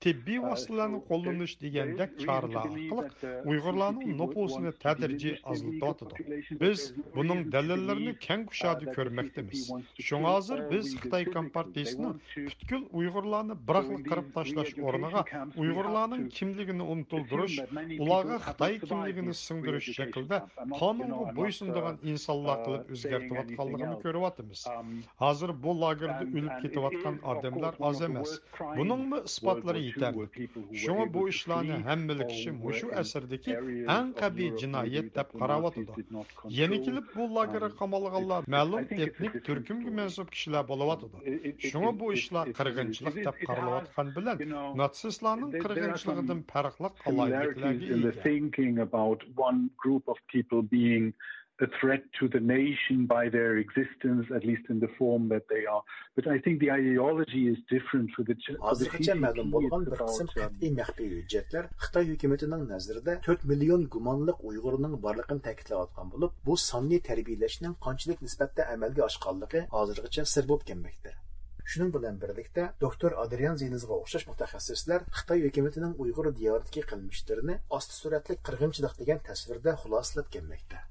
تېببىي ۋاسىتىلەرنى قوللىنىش دېگەندەك چارىلەر ئارقىلىق ئۇيغۇرلارنىڭ نوپۇسىنى تەدرىجىي ئازلىتىۋاتىدۇ. بىز بۇنىڭ دەلىللىرىنى كەڭ كۇشادە كۆرمەكتىمىز. شۇڭا ھازىر بىز خىتاي كومپارتىيىسىنىڭ پۈتكۈل ئۇيغۇرلارنى بىراقلا قىرىپ تاشلاش ئورنىغا، ئۇيغۇرلارنىڭ كىملىكىنى ئۇنتۇلدۇرۇش، ئۇلارغا خىتاي كىملىكىنى سىڭدۈرۈش شەكلىدە قانۇنغا بويسۇنىدىغان ئىنسانلار قىلىپ ئۆزگەرتىۋاتقانلىقىنى كۆرۈۋاتىمىز. ھازىر بۇ لاگېردا ئۆلۈپ كېتىۋاتقان ئادەملەر ئاز ئەمەس. بۇنىڭمۇ ئىسپاتلىرى يېتەرلىك. شۇڭا بۇ ئىشلارنى ھەممىلا كىشى مۇشۇ ئەسىردىكى ئەڭ قەبىھ جىنايەت دەپ قاراۋاتىدۇ. يەنە كېلىپ بۇ لاگېرغا قامالغانلار مەلۇم ئېتنىك تۈركۈمگە مەنسۇپ كىشىلەر بولۇۋاتىدۇ. شۇڭا بۇ ئىشلار قىرغىنچىلىق دەپ قارىلىۋاتقان بىلەن ناتسىستلارنىڭ قىرغىنچىلىقىدىن پەرقلىق ئالاھىدىلىكلەرگە ئىگە. Thinking about one group of people being a threat to the nation by their existence, at least in the form that they are. But I think the ideology is different for the Ch- for the ھازىرغىچە مەلۇم بولغان بىر قىسىم قەتئىي مەخپىي ھۆججەتلەر خىتاي ھۆكۈمىتىنىڭ نەزىرىدە تۆت مىليون گۇمانلىق ئۇيغۇرنىڭ بارلىقىنى تەكىتلەۋاتقان بولۇپ، بۇ ساننى تەربىيىلەشنىڭ قانچىلىك نىسبەتتە ئەمەلگە ئاشقانلىقى ھازىرغىچە سىر بولۇپ كەلمەكتە. شۇنىڭ بىلەن بىرلىكتە، دوكتور ئادرىيان زىنىزغا ئوخشاش مۇتەخەسسىسلەر خىتاي ھۆكۈمىتىنىڭ ئۇيغۇر دىيارىدىكى قىلمىشلىرىنى ئاستا سۈرئەتلىك قىرغىنچىلىق دېگەن تەسۋىردە خۇلاسىلەپ كەلمەكتە.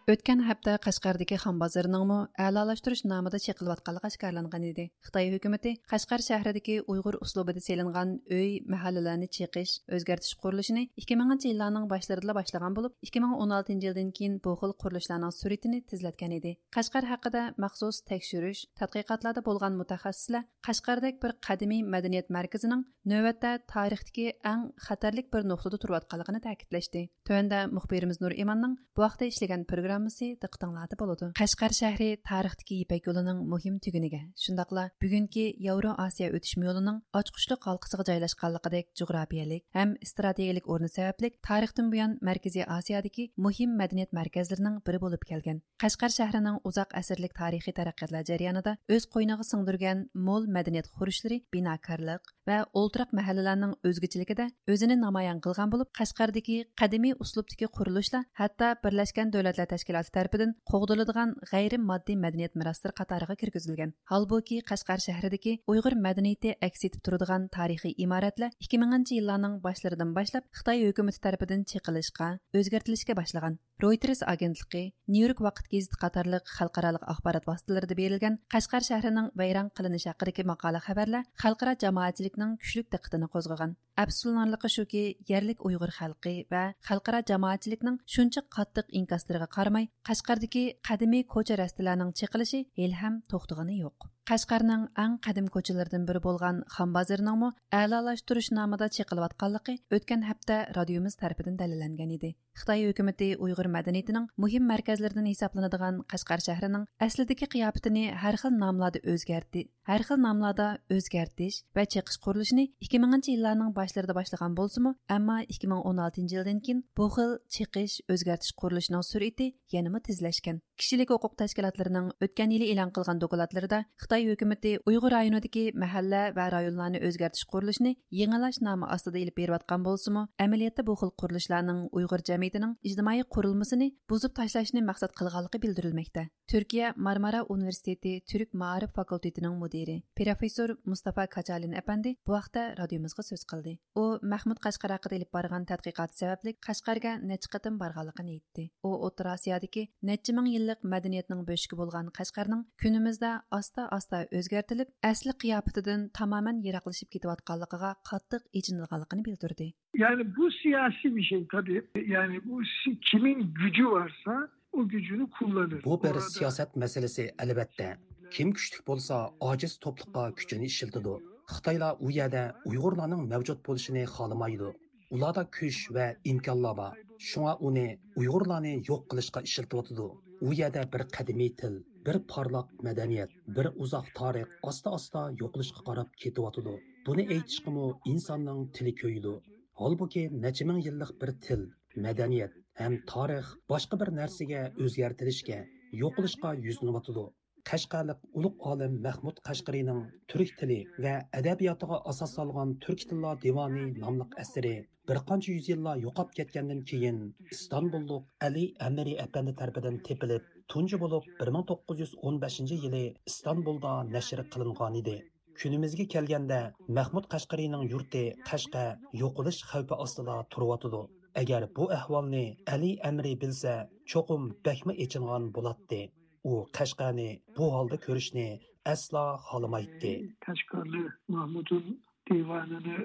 ئۆتكەن ھەپتە قەشقەردىكى خان بازىرىنىڭمۇ ئەلالاشتۇرۇش نامىدا چېقىلىۋاتقانلىقى ئاشكارىلانغان ئىدى. خىتاي ھۆكۈمىتى قەشقەر شەھىرىدىكى ئۇيغۇر ئۇسلۇبىدا سېلىنغان ئۆي، مەھەللىلەرنى چېقىش، ئۆزگەرتىش قۇرۇلۇشىنى ئىككى مىڭىنچى يىللارنىڭ باشلىرىدىلا باشلىغان بولۇپ، ئىككى مىڭ ئون ئالتىنچى يىلدىن كېيىن بۇ خىل قۇرۇلۇشلارنىڭ سۈرئىتىنى تېزلەتكەن ئىدى. قەشقەر ھەققىدە مەخسۇس تەكشۈرۈش، تەتقىقاتلاردا بولغان مۇتەخەسسىسلەر قەشقەردەك بىر قەدىمىي مەدەنىيەت مەركىزىنىڭ نۆۋەتتە تارىختىكى ئەڭ خەتەرلىك بىر نۇقتىدا تۇرۇۋاتقانلىقىنى تەكىتلەشتى. تۆۋەندە مۇخبىرىمىز نۇرئىماننىڭ بۇ ھەقتە ئىشلىگەن پروگراممىسى دىققىتىڭلاردا بولىدۇ. قەشقەر شەھىرى تارىختىكى يىپەك يولىنىڭ مۇھىم تۈگۈنىگە، شۇنداقلا بۈگۈنكى ياۋرو ئاسىيا ئۆتۈشمە يولىنىڭ ئاچقۇچلۇق ھالقىسىغا جايلاشقانلىقىدەك جۇغراپىيەلىك ھەم ئىستراتېگىيەلىك ئورنى سەۋەبلىك، تارىختىن بۇيان مەركىزىي ئاسىيادىكى مۇھىم مەدەنىيەت مەركەزلىرىنىڭ بىرى بولۇپ كەلگەن. قەشقەر شەھىرىنىڭ ئۇزاق ئەسىرلىك تارىخىي تەرەققىياتلار جەريانىدا ئۆز قوينىغا سىڭدۈرگەن مول مەدەنىيەت خۇرۇچلىرى، بىناكارلىق ۋە ئولتۇراق مەھەللىلەرنىڭ ئۆزگىچىلىكىدە ئۆزىنى نامايان قىلغان بولۇپ، قەشقەردىكى قەدىمىي ئۇسلۇبتىكى قۇرۇلۇشلار ھەتتا بىرلەشكەن دۆلەتلەر تەشكىلاتى تەرىپىدىن قوغدىلىدىغان غەيرىي ماددىي مەدەنىيەت مىراسلىرى قاتارىغا كىرگۈزۈلگەن. ھالبۇكى، قەشقەر شەھىرىدىكى ئۇيغۇر مەدەنىيىتى ئەكس ئېتىپ تۇرىدىغان تارىخىي ئىمارەتلەر ئىككى مىڭىنچى يىللارنىڭ باشلىرىدىن باشلاپ خىتاي ھۆكۈمىتى تەرىپىدىن چېقىلىشقا، ئۆزگەرتىلىشكە باشلىغان. رويتېرس ئاگېنتلىقى، نيۇ يورك ۋاقىت گېزىتى قاتارلىق خەلقئارالىق ئاخبارات ۋاسىتىلىرىدا بېرىلگەن قەشقەر شەھىرىنىڭ ۋەيران قىلىنىشى ھەققىدىكى ماقالە خەۋەرلەر خەلقئارا جامائەتچىلىكنىڭ كۈچلۈك دىققىتىنى قوزغىغان. ئەپسۇسلىنارلىقى شۇكى، يەرلىك ئۇيغۇر خەلقى ۋە خەلقئارا جامائەتچىلىكنىڭ شۇنچە قاتتىق ئىنكاسلىرىغا قارىماي، قەشقەردىكى قەدىمىي كوچا رەستىلەرنىڭ چېقىلىشى ھېلىھەم توختىغىنى يوق. قەشقەرنىڭ ئەڭ قەدىم كوچىلىرىدىن بىرى بولغان خان بازىرىنىڭمۇ ئەلالاشتۇرۇش نامىدا چېقىلىۋاتقانلىقى ئۆتكەن ھەپتە رادىيومىز تەرىپىدىن دەلىللەنگەن ئىدى. خىتاي ھۆكۈمىتى ئۇيغۇر مەدەنىيىتىنىڭ مۇھىم مەركەزلىرىدىن ھېسابلىنىدىغان قەشقەر شەھىرىنىڭ ئەسلىدىكى قىياپىتىنى ھەر خىل ناملاردا ئۆزگەرتتى، ھەر خىل ناملاردا ئۆزگەرتىش ۋە چېقىش قۇرۇلۇشىنى ئىككى مىڭىنچى يىللارنىڭ باشلىرىدا باشلىغان بولسىمۇ، ئەمما ئىككى مىڭ ئون ئالتىنچى يىلدىن كېيىن بۇ خىل چېقىش، ئۆزگەرتىش قۇرۇلۇشىنىڭ سۈرئىتى يەنىمۇ تېزلەشكەن. كىشىلىك ھوقۇق تەشكىلاتلىرىنىڭ ئۆتكەن يىلى ئېلان قىلغان دوكلاتلىرىدا خىتاي ھۆكۈمىتى ئۇيغۇر رايونىدىكى مەھەللە ۋە رايونلارنى ئۆزگەرتىش قۇرۇلۇشىنى يېڭىلاش نامى ئاستىدا ئېلىپ بېرىۋاتقان بولسىمۇ، ئەمەلىيەتتە بۇ خىل قۇرۇلۇشلارنىڭ ئۇيغۇر جەمئىيىتىنىڭ ئىجتىمائىي قۇرۇلمىسىنى بۇزۇپ تاشلاشنى مەقسەت قىلغانلىقى بىلدۈرۈلمەكتە. تۈركىيە مارمارا ئۇنىۋېرسىتېتى تۈرك مائارىپ فاكۇلتېتىنىڭ مۇدىرى، پروفېسسور مۇستافا كاچالىن ئەپەندى بۇ ھەقتە رادىيومىزغا سۆز قىلدى. ئۇ مەھمۇد قەشقەر ھەققىدە ئېلىپ بارغان تەتقىقاتى سەۋەبلىك قەشقەرگە نەچچە قېتىم بارغانلىقىنى ئېيتتى. ئۇ ئوتتۇرا ئاسىيادىكى نەچچە مىڭ يىللىق مەدەنىيەتنىڭ بۆشۈكى بولغان قەشقەرنىڭ كۈنىمىزدە ئاستا-ئاستا ئاستا ئۆزگەرتىلىپ، ئەسلى قىياپىتىدىن تامامەن يىراقلىشىپ كېتىۋاتقانلىقىغا قاتتىق ئېچىنىدىغانلىقىنى بىلدۈردى. Yani bu siyasi bir şey tabii. Yani bu si- kimin gücü varsa o gücünü kullanır. بۇ بىر سىياسەت مەسىلىسى، ئەلۋەتتە. كىم كۈچلۈك بولسا، ئاجىز توپلۇققا كۈچىنى ئىشلىتىدۇ. خىتايلار ئۇ يەردە ئۇيغۇرلارنىڭ مەۋجۇت بولۇشىنى خالىمايدۇ. ئۇلاردا كۈچ ۋە ئىمكانلار بار. شۇڭا ئۇنى ئۇيغۇرلارنى يوق قىلىشقا ئىشلىتىۋاتىدۇ. ئۇ يەردە بىر قەدىمىي تىل، بىر پارلاق مەدەنىيەت، بىر ئۇزاق تارىخ ئاستا-ئاستا يوقىلىشقا قاراپ كېتىۋاتىدۇ. بۇنى ئېيتىشقىمۇ ئىنساننىڭ تىلى كۆيىدۇ. ھالبۇكى، نەچچە مىڭ يىللىق بىر تىل، مەدەنىيەت ھەم تارىخ باشقا بىر نەرسىگە ئۆزگەرتىلىشكە، يوقىلىشقا يۈزلىنىۋاتىدۇ. قەشقەرلىك ئۇلۇغ ئالىم مەھمۇد قەشقىرىنىڭ تۈرك تىلى ۋە ئەدەبىياتىغا ئاساس سالغان تۈركىي تىللار دىۋانى ناملىق ئەسىرى بىر قانچە يۈز يىللار يوقاپ كەتكەندىن كېيىن، ئىستانبۇللۇق ئەلى ئەمىرى ئەپەندى تەرىپىدىن تېپىلىپ، تۇنجى بولۇپ بىر مىڭ توققۇز يۈز ئون بەشىنچى يىلى ئىستانبۇلدا نەشر قىلىنغانىدى. كۈنىمىزگە كەلگەندە، مەھمۇد قەشقىرىنىڭ يۇرتى قەشقەر يوقىلىش خەۋپى ئاستىدا تۇرۇۋاتىدۇ. ئەگەر بۇ ئەھۋالنى ئەلى ئەمىرى بىلسە، چوقۇم بەكمۇ ئېچىنغان بولاتتى. ئۇ قەشقەرنى بۇ ھالدا كۆرۈشنى ئەسلا خالىمايتتى. Kaşgarlı Mahmud'un divanını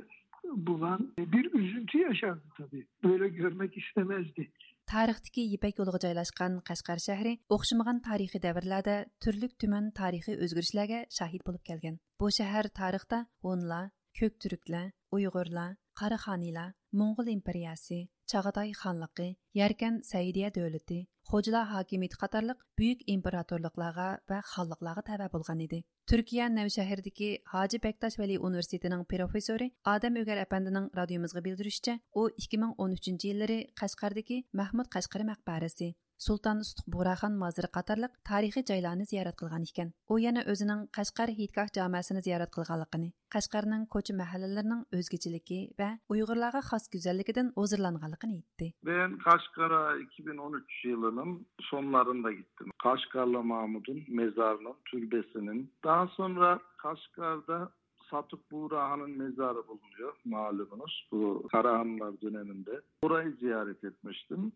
bulan bir üzüntü yaşardı tabii. Böyle görmek istemezdi. تارىختىكى يىپەك يولىغا جايلاشقان قەشقەر شەھىرى ئوخشىمىغان تارىخىي دەۋرلەردە تۈرلۈك تۈمەن تارىخىي ئۆزگىرىشلەرگە شاھىت بولۇپ كەلگەن. بۇ شەھەر تارىختا ھونلار، كۆك تۈركلەر، ئۇيغۇرلار، قاراخانىيلار، موڭغۇل ئىمپېرىيەسى، چاغاتاي خانلىقى، يەركەن سەئىدىيە دۆلىتى، خوجىلار ھاكىمىيىتى قاتارلىق بۈيۈك ئىمپېراتورلۇقلارغا ۋە خانلىقلارغا تەۋە بولغان ئىدى. تۈركىيە نەۋشەھىرىدىكى ھاجى بەكتاش ۋەلى ئۇنىۋېرسىتېتىنىڭ پروفېسسورى ئادەم ئۆگەر ئەپەندىنىڭ رادىيومىزغا بىلدۈرۈشىچە، ئۇ ئىككى مىڭ ئون ئۈچىنچى يىللىرى قەشقەردىكى مەھمۇد قەشقىرى مەقبەرىسى، سۇلتان ئۇستۇق بۇغراخان مازىرى قاتارلىق تارىخىي جايلارنى زىيارەت قىلغان ئىكەن. ئۇ يەنە ئۆزىنىڭ قەشقەر ھېيتگاھ جامەسىنى زىيارەت قىلغانلىقىنى، قەشقەرنىڭ كوچا مەھەللىلىرىنىڭ ئۆزگىچىلىكى ۋە ئۇيغۇرلارغا خاس گۈزەللىكىدىن ھۇزۇرلانغانلىقىنى ئېيتتى. Ben Kaşgar'a iki bin on üç yılının sonlarında gittim. Kaşgarlı Mahmud'un mezarının, türbesinin. Daha sonra Kaşgar'da Satuk Buğrahan'ın mezarı bulunuyor malumunuz. Bu Karahanlılar döneminde. Orayı ziyaret etmiştim.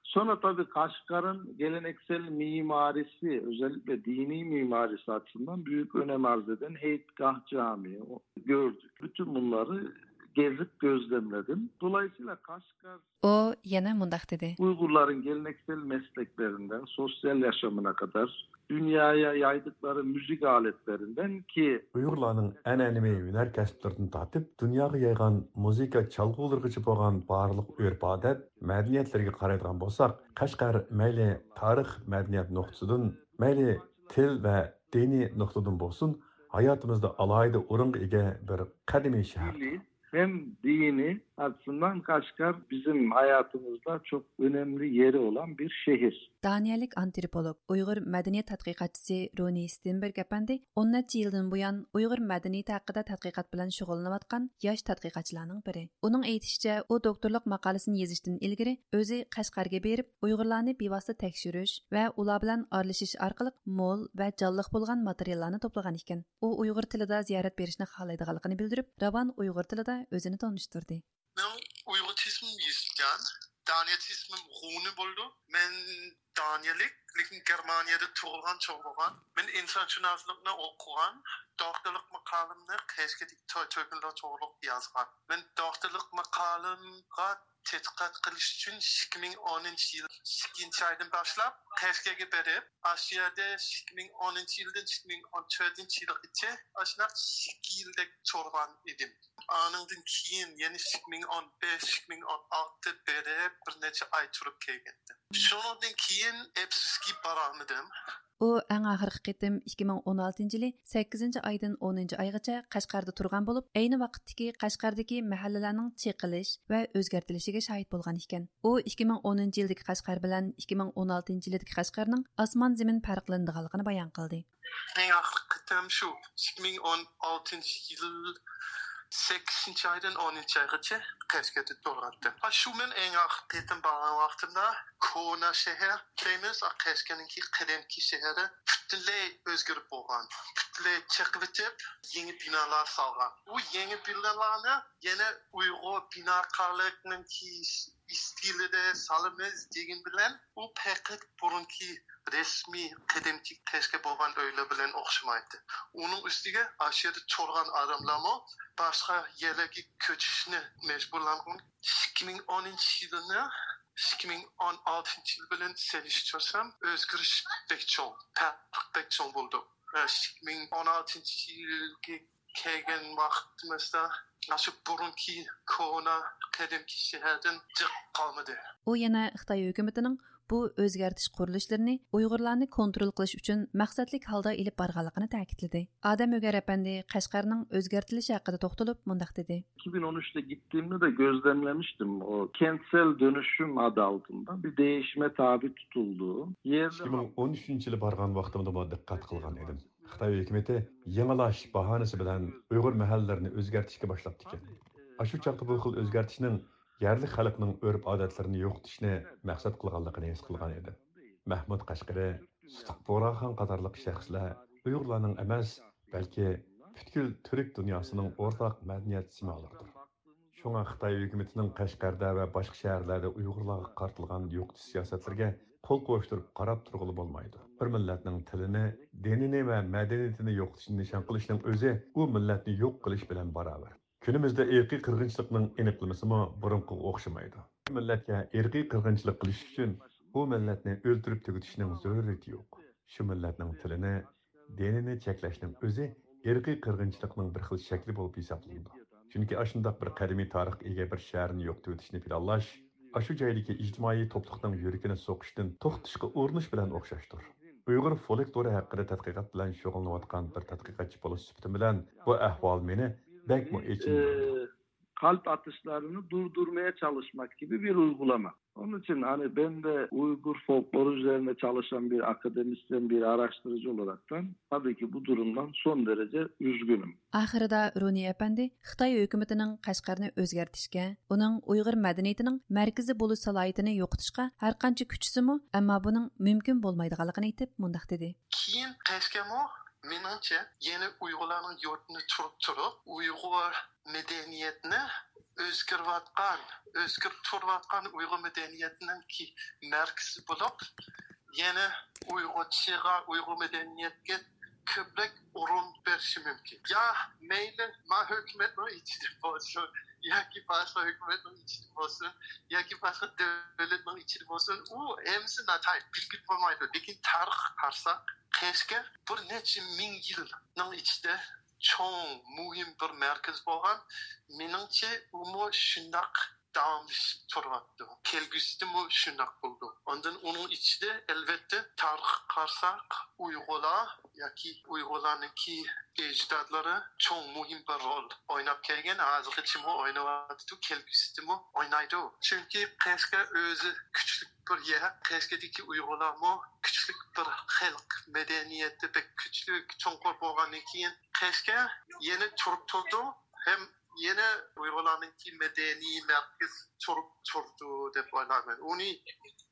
Sonra tabii Kaşgar'ın geleneksel mimarisi, özellikle dini mimarisi açısından büyük önem arz eden Heytgah Camii o- gördük. Bütün bunları gezip gözlemledim. Dolayısıyla Kaşgar ئۇ يەنە مۇنداق دېدى. Uygurların geleneksel mesleklerinden sosyal yaşamına kadar dünyaya yaydıkları müzik aletlerinden ki ئۇيغۇرلارنىڭ ئەنئەنىۋى ھۈنەر كەسىپلىرىدىن تارتىپ دۇنياغا يايغان مۇزىكا چالغۇلىرىغىچە بولغان بارلىق ئۆرپ-ئادەت، مەدەنىيەتلىرىگە قارايدىغان بولساق، قەشقەر مەيلى تارىخ، مەدەنىيەت نۇقتىسىدىن، مەيلى تىل ۋە دىنىي نۇقتىدىن بولسۇن، ھاياتىمىزدا ئالاھىدە ئورۇنغا ئىگە بىر قەدىمىي شەھەر. Milli hem dini açısından Kaşgar bizim hayatımızda çok önemli yeri olan bir şehir. دانىيەلىك ئانتروپولوگ، ئۇيغۇر مەدەنىيەت تەتقىقاتچىسى رونى ستېنبېرگ ئەپەندى ئون نەچچە يىلدىن بۇيان ئۇيغۇر مەدەنىيىتى ھەققىدە تەتقىقات بىلەن شۇغۇللىنىۋاتقان ياش تەتقىقاتچىلارنىڭ بىرى. ئۇنىڭ ئېيتىشىچە، ئۇ دوكتورلۇق ماقالىسىنى يېزىشتىن ئىلگىرى ئۆزى قەشقەرگە بېرىپ، ئۇيغۇرلارنى بىۋاسىتە تەكشۈرۈش ۋە ئۇلار بىلەن ئارىلىشىش ئارقىلىق مول ۋە جانلىق بولغان ماتېرىياللارنى توپلىغان ئىكەن. ئۇ ئۇيغۇر تىلىدا زىيارەت بېرىشنى خالايدىغانلىقىنى بىلدۈرۈپ، راۋان ئۇيغۇر تىلىدا ئۆزىنى تونۇشتۇردى. مەن ئۇيغۇر تىلىمۇ يېزىلگەن، دانىيەت تىلىمۇ غۇنى بولىدۇ. مەن دانىيەلىك، لېكىن گېرمانىيەدە تۇغۇلغان، چوڭ بولغان. مەن ئىنسانشۇناسلىقنى ئوقۇغان، دوكتورلۇق ماقالەمنى قەشقەردىكى تۆ-، تۆكۈنلەر توغرۇلۇق يازغان. مەن دوكتورلۇق ماقالەمگە تەتقىقات قىلىش ئۈچۈن ئىككى مىڭ ئونىنچى يىل ئىككىنچى ئايدىن باشلاپ قەشقەرگە بېرىپ، ئاشۇ يەردە ئىككى مىڭ ئونىنچى يىلدىن ئىككى مىڭ ئون تۆتىنچى يىلغىچە ئاشۇنداق ئىككى يىلدەك تۇرغان ئىدىم. ئانىڭدىن كېيىن يەنە ئىككى مىڭ ئون بەش، ئىككى مىڭ ئون ئالتە بېرىپ، بىر نەچچە ئاي تۇرۇپ كەلگەنىدىم. شۇنىڭدىن كېيىن ئەپسۇسكى بارالمىدىم. ئۇ ئەڭ ئاخىرقى قېتىم ئىككى مىڭ ئون ئالتىنچى يىلى سەككىزىنچى ئايدىن ئونىنچى ئايغىچە قەشقەردە تۇرغان بولۇپ، ئەينى ۋاقىتتىكى قەشقەردىكى مەھەللىلەرنىڭ چېقىلىش ۋە ئۆزگەرتىلىشىگە شاھىت بولغان ئىكەن. ئۇ ئىككى مىڭ ئونىنچى يىلدىكى قەشقەر بىلەن ئىككى مىڭ ئون ئالتىنچى يىلدىكى قەشقەرنىڭ ئاسمان زېمىن پەرقلىنىدىغانلىقىنى بايان قىلدى. ئەڭ ئاخىرقى قېتىم شۇ ئىككى مىڭ ئون ئالتىنچى يىل سەككىزىنچى ئايدىن ئونىنچى ئايغىچە قەشقەردە تۇرغانتىم. ھا، شۇ مەن ئەڭ ئاخىرقى قېتىم بارغان ۋاقتىمدا كونا شەھەر دەيمىز، قەشقەرنىڭكى قەدىمكى شەھىرى پۈتۈنلەي ئۆزگىرىپ بولغان. پۈتۈنلەي چېقىۋېتىپ، يېڭى بىنالار سالغان. ئۇ يېڭى بىنالارنى يەنە ئۇيغۇر بىناكارلىقنىڭكى ئىستىلىدە سالىمىز دېگەن بىلەن، ئۇ پەقەت بۇرۇنقى رەسمىي قەدىمكى قەشقەر بولغان ئۆيلەر بىلەن ئوخشىمايتتى. ئۇنىڭ ئۈستىگە ئاشۇ يەردە تۇرغان ئادەملەرمۇ باشقا يەرلەرگە كۆچۈشنى مەجبۇرلانغان. ئىككى مىڭ ئونىنچى يىلنى ئىككى مىڭ ئون ئالتىنچى يىل بىلەن سېلىشتۇرسام، ئۆزگىرىش بەك چوڭ، پەرق بەك چوڭ بولدى. ئىككى مىڭ ئون ئالتىنچى يىلغا كەلگەن ۋاقتىمىزدا ئاشۇ بۇرۇنقى كونا قەدىمكى شەھەردىن جىق قالمىدى. ئۇ يەنە خىتاي ھۆكۈمىتىنىڭ بۇ ئۆزگەرتىش قۇرۇلۇشلىرىنى ئۇيغۇرلارنى كونترول قىلىش ئۈچۈن مەقسەتلىك ھالدا ئېلىپ بارغانلىقىنى تەكىتلىدى. ئادەم ئۆگەر ئەپەندى قەشقەرنىڭ ئۆزگەرتىلىشى ھەققىدە توختىلىپ مۇنداق دېدى. iki bin on üçte gittiğimde de gözlemlemiştim. O kentsel dönüşüm adı altında bir değişime tabi tutuldu. Yerli İki bin on üçüncü yılı barğan vaqtımda bu diqqat qılğan edim. Xitoy hukumati yangilash bahonasi bilan Uyg'ur mahallalarını o'zgartishga boshlabdikan. Ashu chaqda bu xil o'zgartishning yerli xalqning urf-odatlarini yo'qotishni maqsad qilganligini his qilgan edim. Mahmud Qashqari, Sutaq Bo'raxon qatorliq shaxslar Uyg'urlarning emas, balki butkul turk dunyosining o'rtaq madaniyat simolidir. Shunga Xitoy hukumatining Qashqarda va boshqa shaharlarda Uyg'urlarga qaratilgan yo'qotish siyosatlariga qo'l qovushtirib qarab turg'ili bo'lmaydi. Bir millatning tilini, dinini va madaniyatini yo'qotishni nishon qilishning o'zi u millatni yo'q qilish bilan barobar. Kunimizda irqiy qirg'inchilikning aniqlamasimi burunqiga o'xshamaydi. Bir millatga irqiy qirg'inchilik qilish uchun u millatni o'ltirib tugatishning zaruriyati yo'q. Shu millatning tilini, dinini cheklashning o'zi irqiy qirg'inchilikning bir xil shakli bo'lib hisoblanadi. Chunki ashundoq bir qadimiy tarixga ega bir shaharni yo'qotib o'tishni planlash, ashu joydagi ijtimoiy to'pliqning yurakini so'qishdan to'xtatishga urinish bilan o'xshashdir. Uyg'ur folklori haqida tadqiqot bilan shug'ullanayotgan bir tadqiqotchi bo'lish suhbatim bilan bu ahvol meni bakmi echindi. Kalp atışlarını durdurmaya çalışmak gibi bir uygulama. Onun için hani ben de Uygur folkloru üzerine çalışan bir akademisyen, bir araştırıcı olaraktan tabii ki bu durumdan son derece üzgünüm. ئاخىرىدا رۇنى ئەپەندى خىتاي ھۆكۈمىتىنىڭ قەشقەرنى ئۆزگەرتىشكە، ئۇنىڭ ئۇيغۇر مەدەنىيىتىنىڭ مەركىزى بولۇش سالاھىيىتىنى يوقىتىشقا ھەرقانچە كۈچىسىمۇ، ئەمما بۇنىڭ مۇمكىن بولمايدىغانلىقىنى ئېيتىپ مۇنداق دېدى. كېيىن قەشقەرمۇ مېنىڭچە يەنە ئۇيغۇرلارنىڭ يۇرتىنى تۇرۇپ تۇرۇپ ئۇيغۇر مەدەنىيەتنى ئۆزگىرىۋاتقان، ئۆزگىرىپ تۇرۇۋاتقان ئۇيغۇر مەدەنىيەتنىڭكى مەركىزى بولۇپ، يەنە ئۇيغۇرچىغا، ئۇيغۇر مەدەنىيەتكە كۆپرەك ئورۇن بېرىشى مۇمكىن. يا مەيلى ما ھۆكۈمەتنىڭ ئىچىدە بولسۇن ياكى باشقا ھۆكۈمەتنىڭ ئىچىدە بولسۇن ياكى باشقا دۆلەتنىڭ ئىچىدە بولسۇن، ئۇ ھەممىسى ناتايىن بىلگىلى بولمايدۇ. لېكىن تارىخقا قارىساق، قەشقەر بىر نەچچە مىڭ يىلنىڭ ئىچىدە چوڭ، مۇھىم بىر مەركەز بولغان. مېنىڭچە، ئۇمۇ شۇنداق داۋاملىشىپ تۇرۇۋاتىدۇ. كەلگۈسىدىمۇ شۇنداق بولىدۇ. ئاندىن ئۇنىڭ ئىچىدە، ئەلۋەتتە، تارىخقا قارىساق، ئۇيغۇرلار ياكى ئۇيغۇرلارنىڭكى ئەجدادلىرى چوڭ مۇھىم بىر رول ئويناپ كەلگەن، ھازىرغىچىمۇ ئويناۋاتىدۇ، كەلگۈسىدىمۇ ئوينايدۇ. چۈنكى قەشقەر ئۆزى كۈچلۈك بىر يەر، قەشقەردىكى ئۇيغۇرلارمۇ كۈچلۈك بىر خەلق، مەدەنىيىتى بەك كۈچلۈك، چوڭقۇر بولغاندىن كېيىن قەشقەر يەنە تۇرۇپ تۇرىدۇ ھەم يەنە ئۇيغۇرلارنىڭكى مەدەنىي مەركىزى تۇرۇپ تۇرىدۇ دەپ ئويلايمەن. ئۇنى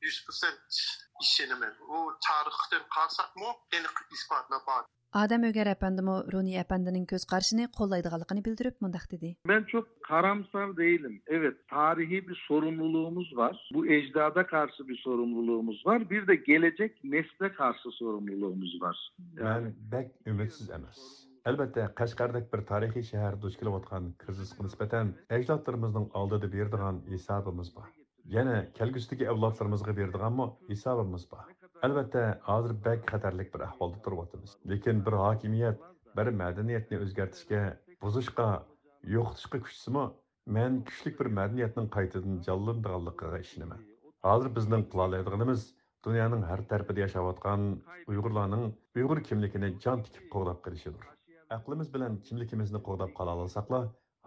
يۈز پىرسەنت ئىشىنىمەن. ئۇ تارىختىن قارىساقمۇ ئېنىق ئىسپاتلار بار. ئادەم ئۆگەر ئەپەندىمۇ رۇنى ئەپەندىنىڭ كۆز قارىشىنى قوللايدىغانلىقىنى بىلدۈرۈپ مۇنداق دېدى. Ben çok karamsar değilim. Evet, tarihi bir sorumluluğumuz var. Bu ecdada karşı bir sorumluluğumuz var. Bir de gelecek nesle karşı sorumluluğumuz var. مەن بەك ئۈمىدسىز ئەمەس. ئەلۋەتتە، قەشقەردەك بىر تارىخىي شەھەر دۇچ كېلىۋاتقان كىرىزىسقا نىسبەتەن ئەجدادلىرىمىزنىڭ ئالدىدا بېرىدىغان ھېسابىمىز بار. يەنە كەلگۈسىدىكى ئەۋلادلىرىمىزغا بېرىدىغانمۇ ھېسابىمىز بار. ئەلۋەتتە، ھازىر بەك خەتەرلىك بىر ئەھۋالدا تۇرۇۋاتىمىز. لېكىن بىر ھاكىمىيەت بىر مەدەنىيەتنى ئۆزگەرتىشكە، بۇزۇشقا، يوقىتىشقا كۈچىسىمۇ، مەن كۈچلۈك بىر مەدەنىيەتنىڭ قايتىدىن جانلىنىدىغانلىقىغا ئىشىنىمەن. ھازىر بىزنىڭ قىلالايدىغىنىمىز دۇنيانىڭ ھەر تەرىپىدە ياشاۋاتقان ئۇيغۇرلارنىڭ ئۇيغۇر كىملىكىنى جان تىكىپ قوغداپ قېلىشىدۇر. ئەقلىمىز بىلەن كىملىكىمىزنى قوغداپ قالالىساقلا،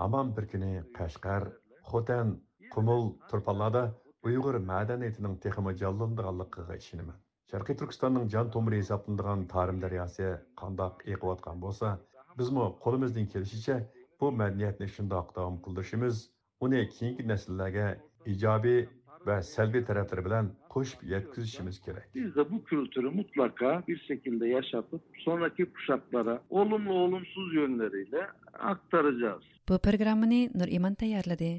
ھامان بىر كۈنى قەشقەر، خوتەن، قۇمۇل، تۇرپانلاردا ئۇيغۇر مەدەنىيىتىنىڭ تېخىمۇ جانلىنىدىغانلىقىغا ئىشىنىمەن. شەرقىي تۈركىستاننىڭ جان تومۇرى ھېسابلىنىدىغان تارىم دەرياسى قانداق ئېقىۋاتقان بولسا، بىزمۇ قولىمىزدىن كېلىشىچە بۇ مەدەنىيەتنى شۇنداق داۋام قىلدۇرۇشىمىز، ئۇنى كېيىنكى نەسىللەرگە ئىجابىي ۋە سەلبىي تەرەپلىرى بىلەن قوشۇپ يەتكۈزۈشىمىز كېرەك. Biz de bu kültürü mutlaka bir şekilde yaşatıp sonraki kuşaklara olumlu olumsuz yönleriyle aktaracağız. بۇ پروگراممىنى نۇرئىمان تەييارلىدى.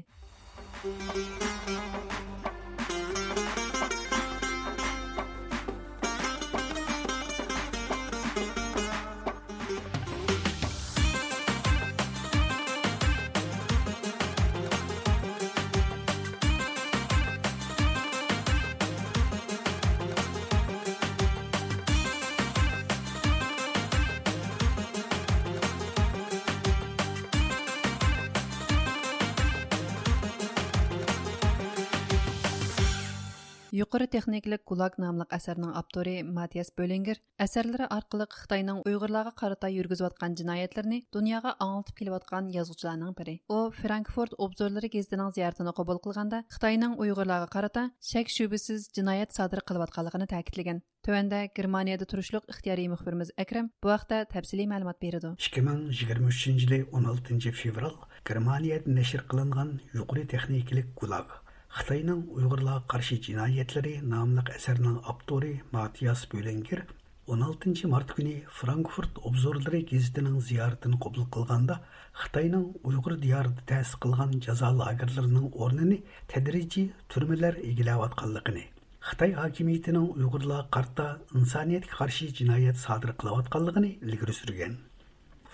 يۇقىرى تېخنىكىلىق گۇلاگ ناملىق ئەسەرنىڭ ئاپتورى ماتىياس بۆلىنگېر ئەسەرلىرى ئارقىلىق خىتاينىڭ ئۇيغۇرلارغا قارىتا يۈرگۈزۈۋاتقان جىنايەتلىرىنى دۇنياغا ئاڭلىتىپ كېلىۋاتقان يازغۇچىلارنىڭ بىرى. ئۇ فرانكفورت ئوبزورلىرى گېزىتىنىڭ زىيارىتىنى قوبۇل قىلغاندا، خىتاينىڭ ئۇيغۇرلارغا قارىتا شەك-شۈبھىسىز جىنايەت سادىر قىلىۋاتقانلىقىنى تەكىتلىگەن. تۆۋەندە گېرمانىيەدە تۇرۇشلۇق ئىختىيارىي مۇخبىرىمىز ئەكرەم بۇ ھەقتە تەپسىلىي مەلۇمات بېرىدۇ. ئىككى مىڭ يىگىرمە ئۈچىنچى يىلى ئون ئالتىنچى فېۋرال گېرمانىيەدە نەشر قىلىنغان يۇقىرى تېخنىكىلىق گۇلاگ، خىتاينىڭ ئۇيغۇرلارغا قارشى جىنايەتلىرى ناملىق ئەسەرنىڭ ئاپتورى ماتىياس بۆلىنگېر ئون ئالتىنچى مارت كۈنى فرانكفورت ئوبزورلىرى گېزىتىنىڭ زىيارىتىنى قوبۇل قىلغاندا، خىتاينىڭ ئۇيغۇر دىيارىدا تەسىس قىلغان جازا لاگېرلىرىنىڭ ئورنىنى تەدرىجىي تۈرمىلەر ئىگىلەۋاتقانلىقىنى، خىتاي ھاكىمىيىتىنىڭ ئۇيغۇرلارغا قارىتا ئىنسانىيەتكە قارشى جىنايەت سادىر قىلىۋاتقانلىقىنى ئىلگىرى سۈرگەن.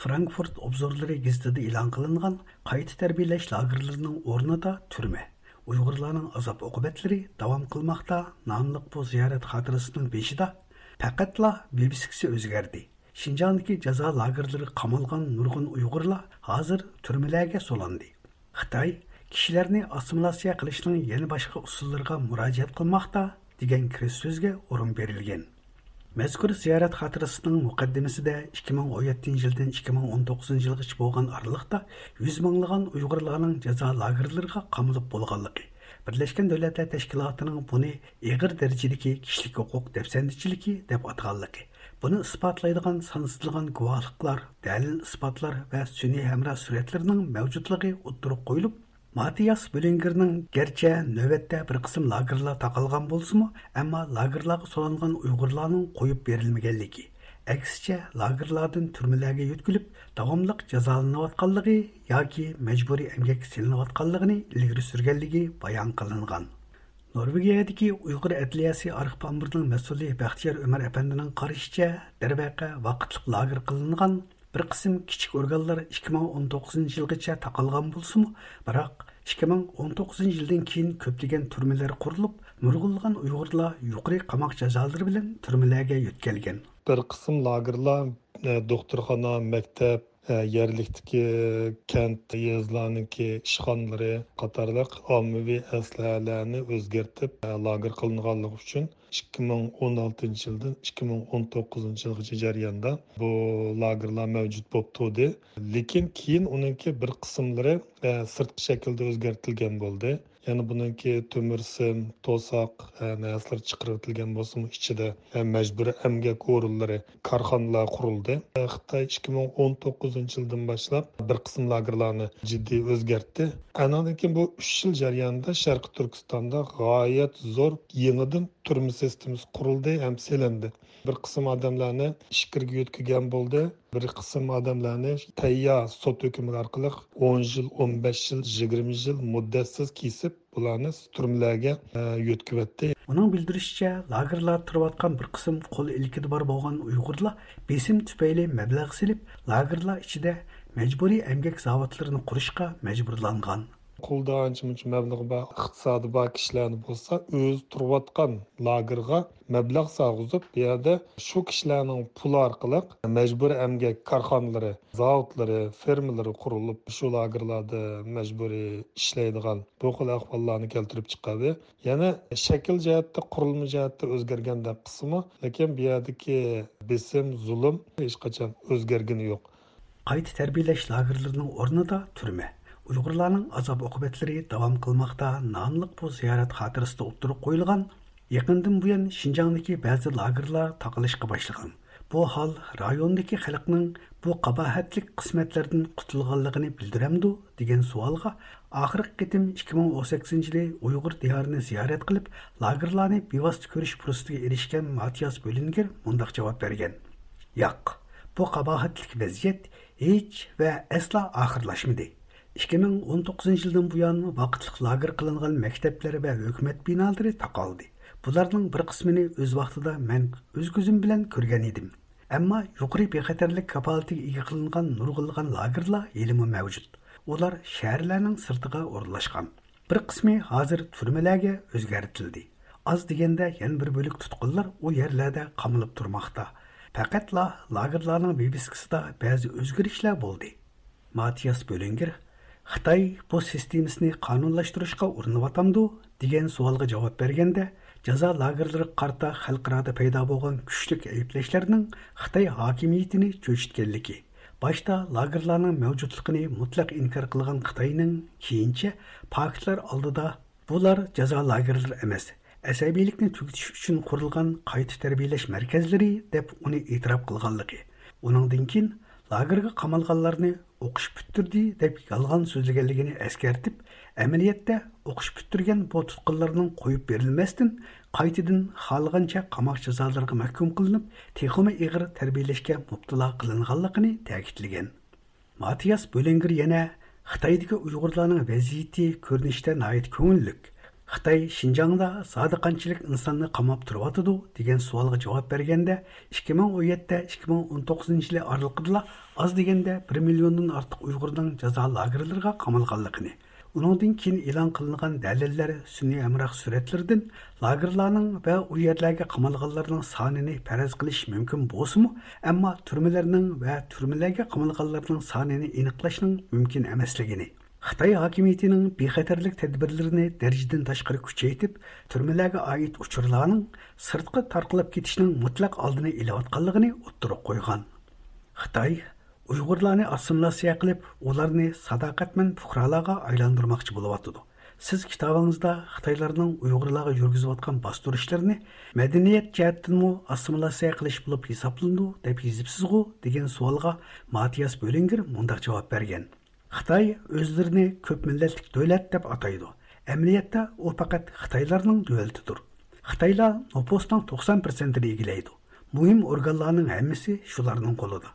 فرانكفورت ئوبزورلىرى گېزىتىدە ئېلان قىلىنغان قايتا تەربىيەلەش لاگېرلىرىنىڭ ئورنىدا تۈرمە، ئۇيغۇرلارنىڭ ئازاب-ئوقۇبەتلىرى داۋام قىلماقتا ناملىق بۇ زىيارەت خاتىرىسىنىڭ بېشىدا پەقەتلا ۋىۋىسكىسى ئۆزگەردى. شىنجاڭدىكى جازا لاگېرلىرىغا قامالغان نۇرغۇن ئۇيغۇرلار ھازىر تۈرمىلەرگە سولاندى. خىتاي كىشىلەرنى ئاسسىمىلياتسىيە قىلىشنىڭ يەنە باشقا ئۇسۇللىرىغا مۇراجىئەت قىلماقتا، دېگەن كىرىش سۆزگە ئورۇن بېرىلگەن. مەزكۇر زىيارەت خاتىرىسىنىڭ مۇقەددىمىسىدە ئىككى مىڭ ئون يەتتىنچى يىلدىن ئىككى مىڭ ئون توققۇزىنچى يىلغىچە بولغان ئارىلىقتا يۈز مىڭلىغان ئۇيغۇرلارنىڭ جازا لاگېرلىرىغا قامىلىپ بولغانلىقى، بىرلەشكەن دۆلەتلەر تەشكىلاتىنىڭ بۇنى ئېغىر دەرىجىدىكى كىشىلىك ھوقۇق دەپسەندىچىلىكى دەپ ئاتىغانلىقى، بۇنى ئىسپاتلايدىغان سانسىزلىغان گۇۋاھلىقلار، دەلىل-ئىسپاتلار ۋە سۈنئىي ھەمراھ سۈرەتلىرىنىڭ مەۋجۇتلۇقى ئوتتۇرىغا قويۇلۇپ، ماتىياس بۆلىنگېرنىڭ گەرچە نۆۋەتتە بىر قىسىم لاگېرلار تاقالغان بولسىمۇ، ئەمما لاگېرلارغا سولانغان ئۇيغۇرلارنىڭ قويۇپ بېرىلمىگەنلىكى، ئەكسىچە، لاگېرلاردىن تۈرمىلەرگە يۆتكىلىپ، داۋاملىق جازالىنىۋاتقانلىقى ياكى مەجبۇرىي ئەمگەككە سېلىنىۋاتقانلىقىنى ئىلگىرى سۈرگەنلىكى بايان قىلىنغان. نورۋېگىيەدىكى ئۇيغۇر ئەدلىيەسى ئارخىپ ئامبىرىنىڭ مەسئۇلى بەختىيار ئۆمەر ئەپەندىنىڭ قارىشىچە، دەرۋەقە، ۋاقىتلىق لاگېر قىلىنغان بىر قىسىم كىچىك ئورگانلار ئىككى مىڭ ئون توققۇزىنچى يىلغىچە تاقالغان بولسىمۇ، بىراق ئىككى مىڭ ئون توققۇزىنچى يىلدىن كېيىن كۆپلىگەن تۈرمىلەر قۇرۇلۇپ، نۇرغۇنلىغان ئۇيغۇرلار يۇقىرى قاماق جازالىرى بىلەن تۈرمىلەرگە يۆتكەلگەن. بىر قىسىم لاگېرلار، ئە، دوختۇرخانا، مەكتەپ، ئە، يەرلىكتىكى كەنت، يېزىلارنىڭكى ئىشخانىلىرى قاتارلىق ئاممىۋى ئەسلىھەلەرنى ئۆزگەرتىپ، ئە، لاگېر قىلىنغانلىقى ئۈچۈن، ئىككى مىڭ ئون ئالتىنچى يىلدىن ئىككى مىڭ ئون توققۇزىنچى يىلغىچە جەرياندا بۇ لاگېرلار مەۋجۇت بولۇپ تۇردى. لېكىن كېيىن ئۇنىڭكى بىر قىسىملىرى، ئە، سىرتقى شەكىلدە ئۆزگەرتىلگەن بولدى. يەنى بۇنىڭكى تۆمۈر سىم، توساق، ئە، نەرسىلەر چىقىرىۋېتىلگەن بولسىمۇ، ئىچىدە، ئە، مەجبۇرىي ئەمگەك ئورۇنلىرى، كارخانىلار قۇرۇلدى. ئە، خىتاي ئىككى مىڭ ئون توققۇزىنچى يىلدىن باشلاپ بىر قىسىم لاگېرلارنى جىددىي ئۆزگەرتتى. ئانىڭدىن كېيىن بۇ ئۈچ يىل جەريانىدا شەرقىي تۈركىستاندا غايەت زور يېڭىدىن تۈرمە سىستېمىسى قۇرۇلدى ھەم سېلىندى. بىر قىسىم ئادەملەرنى ئىچكىرىگە يۆتكىگەن بولدى. بىر قىسىم ئادەملەرنى تەييار سوت ھۆكمى ئارقىلىق ئون يىل، ئون بەش يىل، يىگىرمە يىل مۇددەتسىز كېسىپ، بۇلارنى تۈرمىلەرگە، ئە، يۆتكىۋەتتى. ئۇنىڭ بىلدۈرۈشىچە، لاگېرلاردا تۇرۇۋاتقان بىر قىسىم قول ئىلكىدە بار بولغان ئۇيغۇرلار بېسىم تۈپەيلى مەبلەغ سېلىپ، لاگېرلار ئىچىدە مەجبۇرىي ئەمگەك زاۋۇتلىرىنى قۇرۇشقا مەجبۇرلانغان. قولدا ئانچە-مۇنچە مەبلىغى بار، ئىقتىسادى بار كىشىلەرنى بولسا، ئۆزى تۇرۇۋاتقان لاگېرغا مەبلەغ سالغۇزۇپ، بۇ يەردە شۇ كىشىلەرنىڭ پۇلى ئارقىلىق مەجبۇرىي ئەمگەك كارخانىلىرى، زاۋۇتلىرى، فېرمىلىرى قۇرۇلۇپ، شۇ لاگېرلاردا مەجبۇرىي ئىشلەيدىغان بۇ خىل ئەھۋاللارنى كەلتۈرۈپ چىقاردى. يەنى شەكىل جەھەتتە، قۇرۇلما جەھەتتە ئۆزگەرگەندەك قىلسىمۇ، لېكىن بۇ يەردىكى بېسىم، زۇلۇم ھېچقاچان ئۆزگەرگىنى يوق. قايتا تەربىيەلەش لاگېرلىرىنىڭ ئورنىدا تۈرمە، ئۇيغۇرلارنىڭ ئازاب-ئوقۇبەتلىرى داۋام قىلماقتا ناملىق بۇ زىيارەت خاتىرىسىدە ئوتتۇرىغا قويۇلغان، يېقىندىن بۇيان شىنجاڭدىكى بەزى لاگېرلار تاقىلىشقا باشلىغان. بۇ ھال رايوندىكى خەلقنىڭ بۇ قاباھەتلىك قىسمەتلەردىن قۇتۇلغانلىقىنى بىلدۈرەمدۇ؟ دېگەن سوئالغا ئاخىرقى قېتىم ئىككى مىڭ ئون سەككىزىنچى يىلى ئۇيغۇر دىيارىنى زىيارەت قىلىپ، لاگېرلارنى بىۋاسىتە كۆرۈش پۇرسىتىگە ئېرىشكەن ماتىياس بۆلىنگېر مۇنداق جاۋاب بەرگەن: ياق، بۇ قاباھەتلىك ۋەزىيەت ھېچ ۋە ئەسلا ئاخىرلاشمىدى. ئىككى مىڭ ئون توققۇزىنچى يىلدىن بۇيان ۋاقىتلىق لاگېر قىلىنغان مەكتەپلەر ۋە ھۆكۈمەت بىنالىرى تاقالدى. بۇلارنىڭ بىر قىسمىنى ئۆز ۋاقتىدا مەن ئۆز كۆزۈم بىلەن كۆرگەن ئىدىم. ئەمما يۇقىرى بىخەتەرلىك كاپالىتىگە ئىگە قىلىنغان نۇرغۇنلىغان لاگېرلار ھېلىمۇ مەۋجۇت. ئۇلار شەھەرلەرنىڭ سىرتىغا ئورۇنلاشقان. بىر قىسمى ھازىر تۈرمىلەرگە ئۆزگەرتىلدى. ئاز دېگەندە يەنە بىر بۆلەك تۇتقۇنلار ئۇ يەرلەردە قامىلىپ تۇرماقتا. پەقەتلا لاگېرلارنىڭ ۋىۋىسكىسىدا بەزى ئۆزگىرىشلەر بولدى. ماتىياس بۆلىنگېر خىتاي بۇ سىستېمىسىنى قانۇنلاشتۇرۇشقا ئۇرۇنۇۋاتامدۇ؟ دېگەن سوئالغا جاۋاب بەرگەندە، جازا لاگېرلىرىغا قارىتا خەلقئارادا پەيدا بولغان كۈچلۈك ئەيىبلەشلەرنىڭ خىتاي ھاكىمىيىتىنى چۆچۈتكەنلىكى، باشتا لاگېرلارنىڭ مەۋجۇتلۇقىنى مۇتلەق ئىنكار قىلغان خىتاينىڭ كېيىنچە پاكىتلار ئالدىدا بۇلار جازا لاگېرلىرى ئەمەس، ئەسەبىيلىكنى تۈگىتىش ئۈچۈن قۇرۇلغان قايتا تەربىيەلەش مەركەزلىرى دەپ ئۇنى ئېتىراپ قىلغانلىقى، ئۇنىڭدىن كېيىن لاگېرغا قامالغانلارنى ئوقۇش پۈتتۈردى دەپ يالغان سۆزلىگەنلىكىنى ئەسكەرتىپ، ئەمەلىيەتتە ئوقۇش پۈتتۈرگەن بۇ تۇتقۇنلارنىڭ قويۇپ بېرىلمەستىن، قايتىدىن خالىغانچە قاماق جازالىرىغا مەھكۇم قىلىنىپ، تېخىمۇ ئېغىر تەربىيەلەشكە مۇپتىلا قىلىنغانلىقىنى تەكىتلىگەن. ماتىياس بۆلىنگېر يەنە خىتايدىكى ئۇيغۇرلارنىڭ ۋەزىيىتى كۆرۈنۈشتە ناھايىتى كۆڭۈللۈك. خىتاي شىنجاڭدا زادى قانچىلىك ئىنساننى قاماپ تۇرۇۋاتىدۇ دېگەن سوئالغا جاۋاب بەرگەندە، ئىككى مىڭ ئون يەتتە، ئىككى مىڭ ئون توققۇزىنچى يىلى ئارىلىقىدىلا ئاز دېگەندە بىر مىليوندىن ئارتۇق ئۇيغۇرنىڭ جازا لاگېرلىرىغا قامالغانلىقىنى، ئۇنىڭدىن كېيىن ئېلان قىلىنغان دەلىللەر، سۈنئىي ھەمراھ سۈرەتلىرىدىن لاگېرلارنىڭ ۋە ئۇ يەرلەرگە قامالغانلارنىڭ سانىنى پەرەز قىلىش مۇمكىن بولسىمۇ، ئەمما تۈرمىلەرنىڭ ۋە تۈرمىلەرگە قامالغانلارنىڭ سانىنى ئېنىقلاشنىڭ مۇمكىن ئەمەسلىكىنى، خىتاي ھاكىمىيىتىنىڭ بىخەتەرلىك تەدبىرلىرىنى دەرىجىدىن تاشقىرى كۈچەيتىپ، تۈرمىلەرگە ئائىت ئۇچۇرلارنىڭ سىرتقا تارقىلىپ كېتىشىنىڭ مۇتلەق ئالدىنى ئېلىۋاتقانلىقىنى ئوتتۇرىغا قويغان. خىتاي ئۇيغۇرلارنى ئاسسىمىلياتسىيە قىلىپ، ئۇلارنى ساداقەتمەن پۇقرالارغا ئايلاندۇرماقچى بولۇۋاتىدۇ. سىز كىتابىڭىزدا خىتايلارنىڭ ئۇيغۇرلارغا يۈرگۈزۈۋاتقان باستۇرۇشلىرىنى مەدەنىيەت جەھەتتىنمۇ ئاسسىمىلياتسىيە قىلىش بولۇپ ھېسابلىنىدۇ، دەپ يېزىپسىزغۇ، دېگەن سوئالغا ماتىياس بۆلىنگېر مۇنداق جاۋاب بەرگەن. خىتاي ئۆزلىرىنى كۆپ مىللەتلىك دۆلەت دەپ ئاتايدۇ. ئەمەلىيەتتە ئۇ پەقەت خىتايلارنىڭ دۆلىتىدۇر. خىتايلار نوپۇسنىڭ توقسان پىرسەنتىنى ئىگىلەيدۇ. مۇھىم ئورگانلارنىڭ ھەممىسى شۇلارنىڭ قولىدا.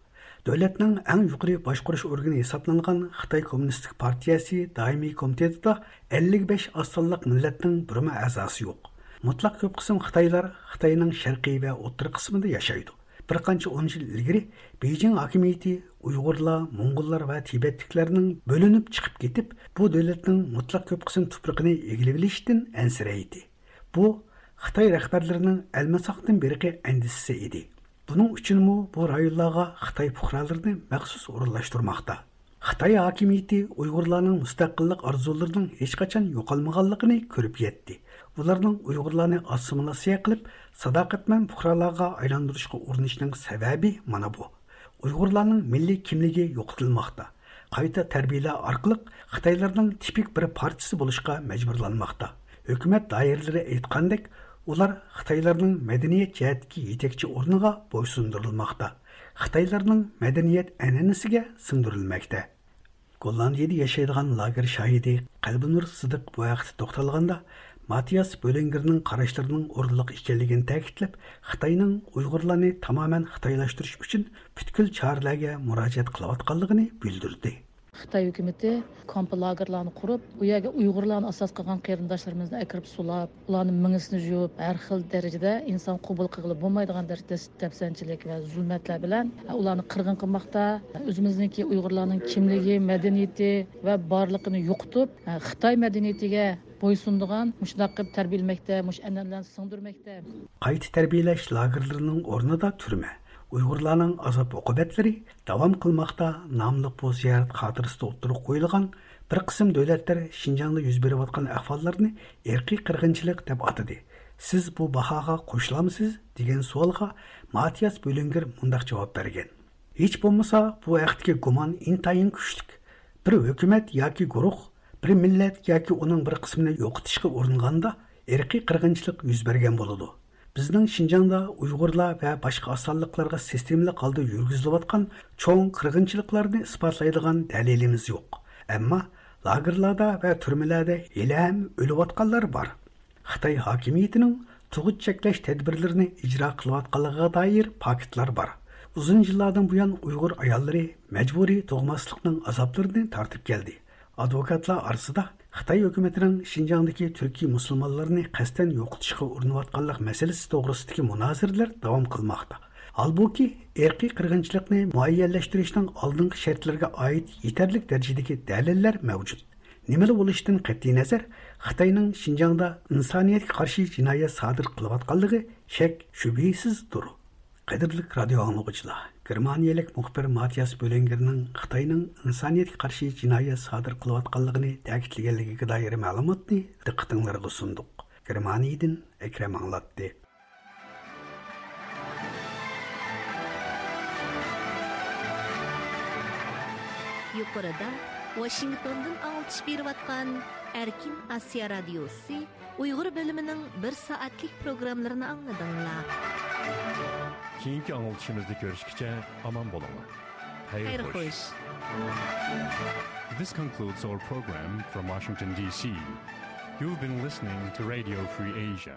دۆلەتنىڭ ئەڭ يۇقىرى باشقۇرۇش ئورگىنى ھېسابلانغان خىتاي كوممۇنىستىك پارتىيەسى دائىمىي كومىتېتىدا ئەللىك بەش ئاز سانلىق مىللەتنىڭ بىرمۇ ئەزاسى يوق. مۇتلەق كۆپ قىسىم خىتايلار خىتاينىڭ شەرقىي ۋە ئوتتۇرا قىسمىدا ياشايدۇ. بىر قانچە ئون يىل ئىلگىرى بېيجىڭ ھاكىمىيىتى ئۇيغۇرلار، موڭغۇللار ۋە تىبەتلىكلەرنىڭ بۆلۈنۈپ چىقىپ كېتىپ، بۇ دۆلەتنىڭ مۇتلەق كۆپ قىسىم تۇپرىقىنى ئىگىلىۋېلىشتىن ئەنسىرەيتتى. بۇ خىتاي رەھبەرلىرىنىڭ ئەلمىساقتىن بېرىقى ئەندىشىسى ئىدى. بۇنىڭ ئۈچۈنمۇ بۇ رايونلارغا خىتاي پۇقرالىرىنى مەخسۇس ئورۇنلاشتۇرماقتا. خىتاي ھاكىمىيىتى ئۇيغۇرلارنىڭ مۇستەقىللىق ئارزۇلىرىنىڭ ھېچقاچان يوقالمىغانلىقىنى كۆرۈپ يەتتى. ئۇلارنىڭ ئۇيغۇرلارنى ئاسسىمىلياتسىيە قىلىپ، ساداقەتمەن پۇقرالارغا ئايلاندۇرۇشقا ئۇرۇنۇشىنىڭ سەۋەبى مانا بۇ. ئۇيغۇرلارنىڭ مىللىي كىملىكى يوقىتىلماقتا. قايتا تەربىيەلەش ئارقىلىق خىتايلارنىڭ تىپىك بىر پارچىسى بولۇشقا مەجبۇرلانماقتا. ھۆكۈمەت دائىرىلىرى ئېيتقاندەك، ئۇلار خىتايلارنىڭ مەدەنىيەت جەھەتتىكى يېتەكچى ئورنىغا بويسۇندۇرۇلماقتا. خىتايلارنىڭ مەدەنىيەت ئەنئەنىسىگە سىڭدۈرۈلمەكتە. گوللاندىيەدە ياشايدىغان لاگېر شاھىدى قەلبىنۇر سىدىق بۇ ھەقتە توختالغاندا، ماتىياس بۆلىنگېرنىڭ قاراشلىرىنىڭ ئورۇنلۇق ئىكەنلىكىنى تەكىتلەپ، خىتاينىڭ ئۇيغۇرلارنى تامامەن خىتايلاشتۇرۇش ئۈچۈن پۈتكۈل چارىلەرگە مۇراجىئەت قىلىۋاتقانلىقىنى بىلدۈردى. خىتاي ھۆكۈمىتى كامپ لاگېرلارنى قۇرۇپ، ئۇ يەرگە ئۇيغۇرلارنى ئاساس قىلغان قېرىنداشلىرىمىزنى ئەكىرىپ سولاپ، ئۇلارنىڭ مېڭىسىنى يۇيۇپ، ھەر خىل دەرىجىدە ئىنسان قوبۇل قىلغىلى بولمايدىغان دەرىجىدە دەپسەندىچىلىك ۋە زۇلمەتلەر بىلەن ئۇلارنى قىرغىن قىلماقتا. ئۆزىمىزنىڭكى ئۇيغۇرلارنىڭ كىملىكى، مەدەنىيىتى ۋە بارلىقىنى يوقىتىپ، خىتاي مەدەنىيىتىگە بويسۇنىدىغان، مۇشۇنداق قىلىپ تەربىيەلىمەكتە، مۇشۇ ئەنئەنىلەرنى سىڭدۈرمەكتە. قايتا تەربىيەلەش لاگېرلىرىنىڭ ئورنىدا تۈرمە، ئۇيغۇرلارنىڭ ئازاب-ئوقۇبەتلىرى داۋام قىلماقتا ناملىق بۇ زىيارەت خاتىرىسىدە ئوتتۇرىغا قويۇلغان بىر قىسىم دۆلەتلەر شىنجاڭدا يۈز بېرىۋاتقان ئەھۋاللارنى ئىرقىي قىرغىنچىلىق دەپ ئاتىدى. سىز بۇ باھاغا قوشۇلامسىز؟ دېگەن سوئالغا ماتىياس بۆلىنگېر مۇنداق جاۋاب بەرگەن: ھېچ بولمىسا، بۇ ھەقتىكى گۇمان ئىنتايىن كۈچلۈك. بىر ھۆكۈمەت ياكى گۇرۇھ بىر مىللەت ياكى ئۇنىڭ بىر قىسمىنى يوقىتىشقا ئۇرۇنغاندا، ئىرقىي قىرغىنچىلىق يۈز بەرگەن بولىدۇ. بىزنىڭ شىنجاڭدا ئۇيغۇرلار ۋە باشقا ئاز سانلىقلارغا سىستېمىلىق ھالدا يۈرگۈزۈلۈۋاتقان چوڭ قىرغىنچىلىقلارنى ئىسپاتلايدىغان دەلىلىمىز يوق. ئەمما لاگېرلاردا ۋە تۈرمىلەردە ھېلىھەم ئۆلۈۋاتقانلار بار. خىتاي ھاكىمىيىتىنىڭ تۇغۇت چەكلەش تەدبىرلىرىنى ئىجرا قىلىۋاتقانلىقىغا دائىر پاكىتلار بار. ئۇزۇن يىللاردىن بۇيان ئۇيغۇر ئاياللىرى مەجبۇرىي تۇغماسلىقنىڭ ئازابلىرىنى تارتىپ كەلدى. ئادۋوكاتلار ئارىسىدا خىتاي ھۆكۈمىتىنىڭ شىنجاڭدىكى تۈركىي مۇسۇلمانلارنى قەستەن يوقىتىشقا ئۇرۇنۇۋاتقانلىق مەسىلىسى توغرىسىدىكى مۇنازىرىلەر داۋام قىلماقتا. ھالبۇكى، ئىرقىي قىرغىنچىلىقنى مۇئەييەنلەشتۈرۈشنىڭ ئالدىنقى شەرتلىرىگە ئائىت يېتەرلىك دەرىجىدىكى دەلىللەر مەۋجۇت. نېمىلا بولۇشىدىن قەتئىينەزەر، خىتاينىڭ شىنجاڭدا ئىنسانىيەتكە قارشى جىنايەت سادىر قىلىۋاتقانلىقى شەك-شۈبھىسىزدۇر. قەدىرلىك رادىئو ئاڭلىغۇچىلار، گېرمانىيەلىك مۇخبىر ماتىياس بۆلىنگېرنىڭ خىتاينىڭ ئىنسانىيەتكە قارشى جىنايەت سادىر قىلىۋاتقانلىقىنى تەكىتلىگەنلىكىگە دائىر مەلۇماتنى دىققىتىڭلارغا سۇندۇق. گېرمانىيەدىن ئەكرەم ئاڭلاتتى. يۇقىرىدا ۋاشىنگتوندىن ئاڭلىتىش بېرىۋاتقان ئەركىن ئاسىيا رادىيوسى ئۇيغۇر بۆلۈمىنىڭ بىر سائەتلىك پروگراممىلىرىنى ئاڭلىدىڭلار. كېيىنكى ئاڭلىتىشىمىزدا كۆرۈشكىچە ئامان بولۇڭلار. خەير خوش. This concludes our program from Washington, D C. You've been listening to Radio Free Asia.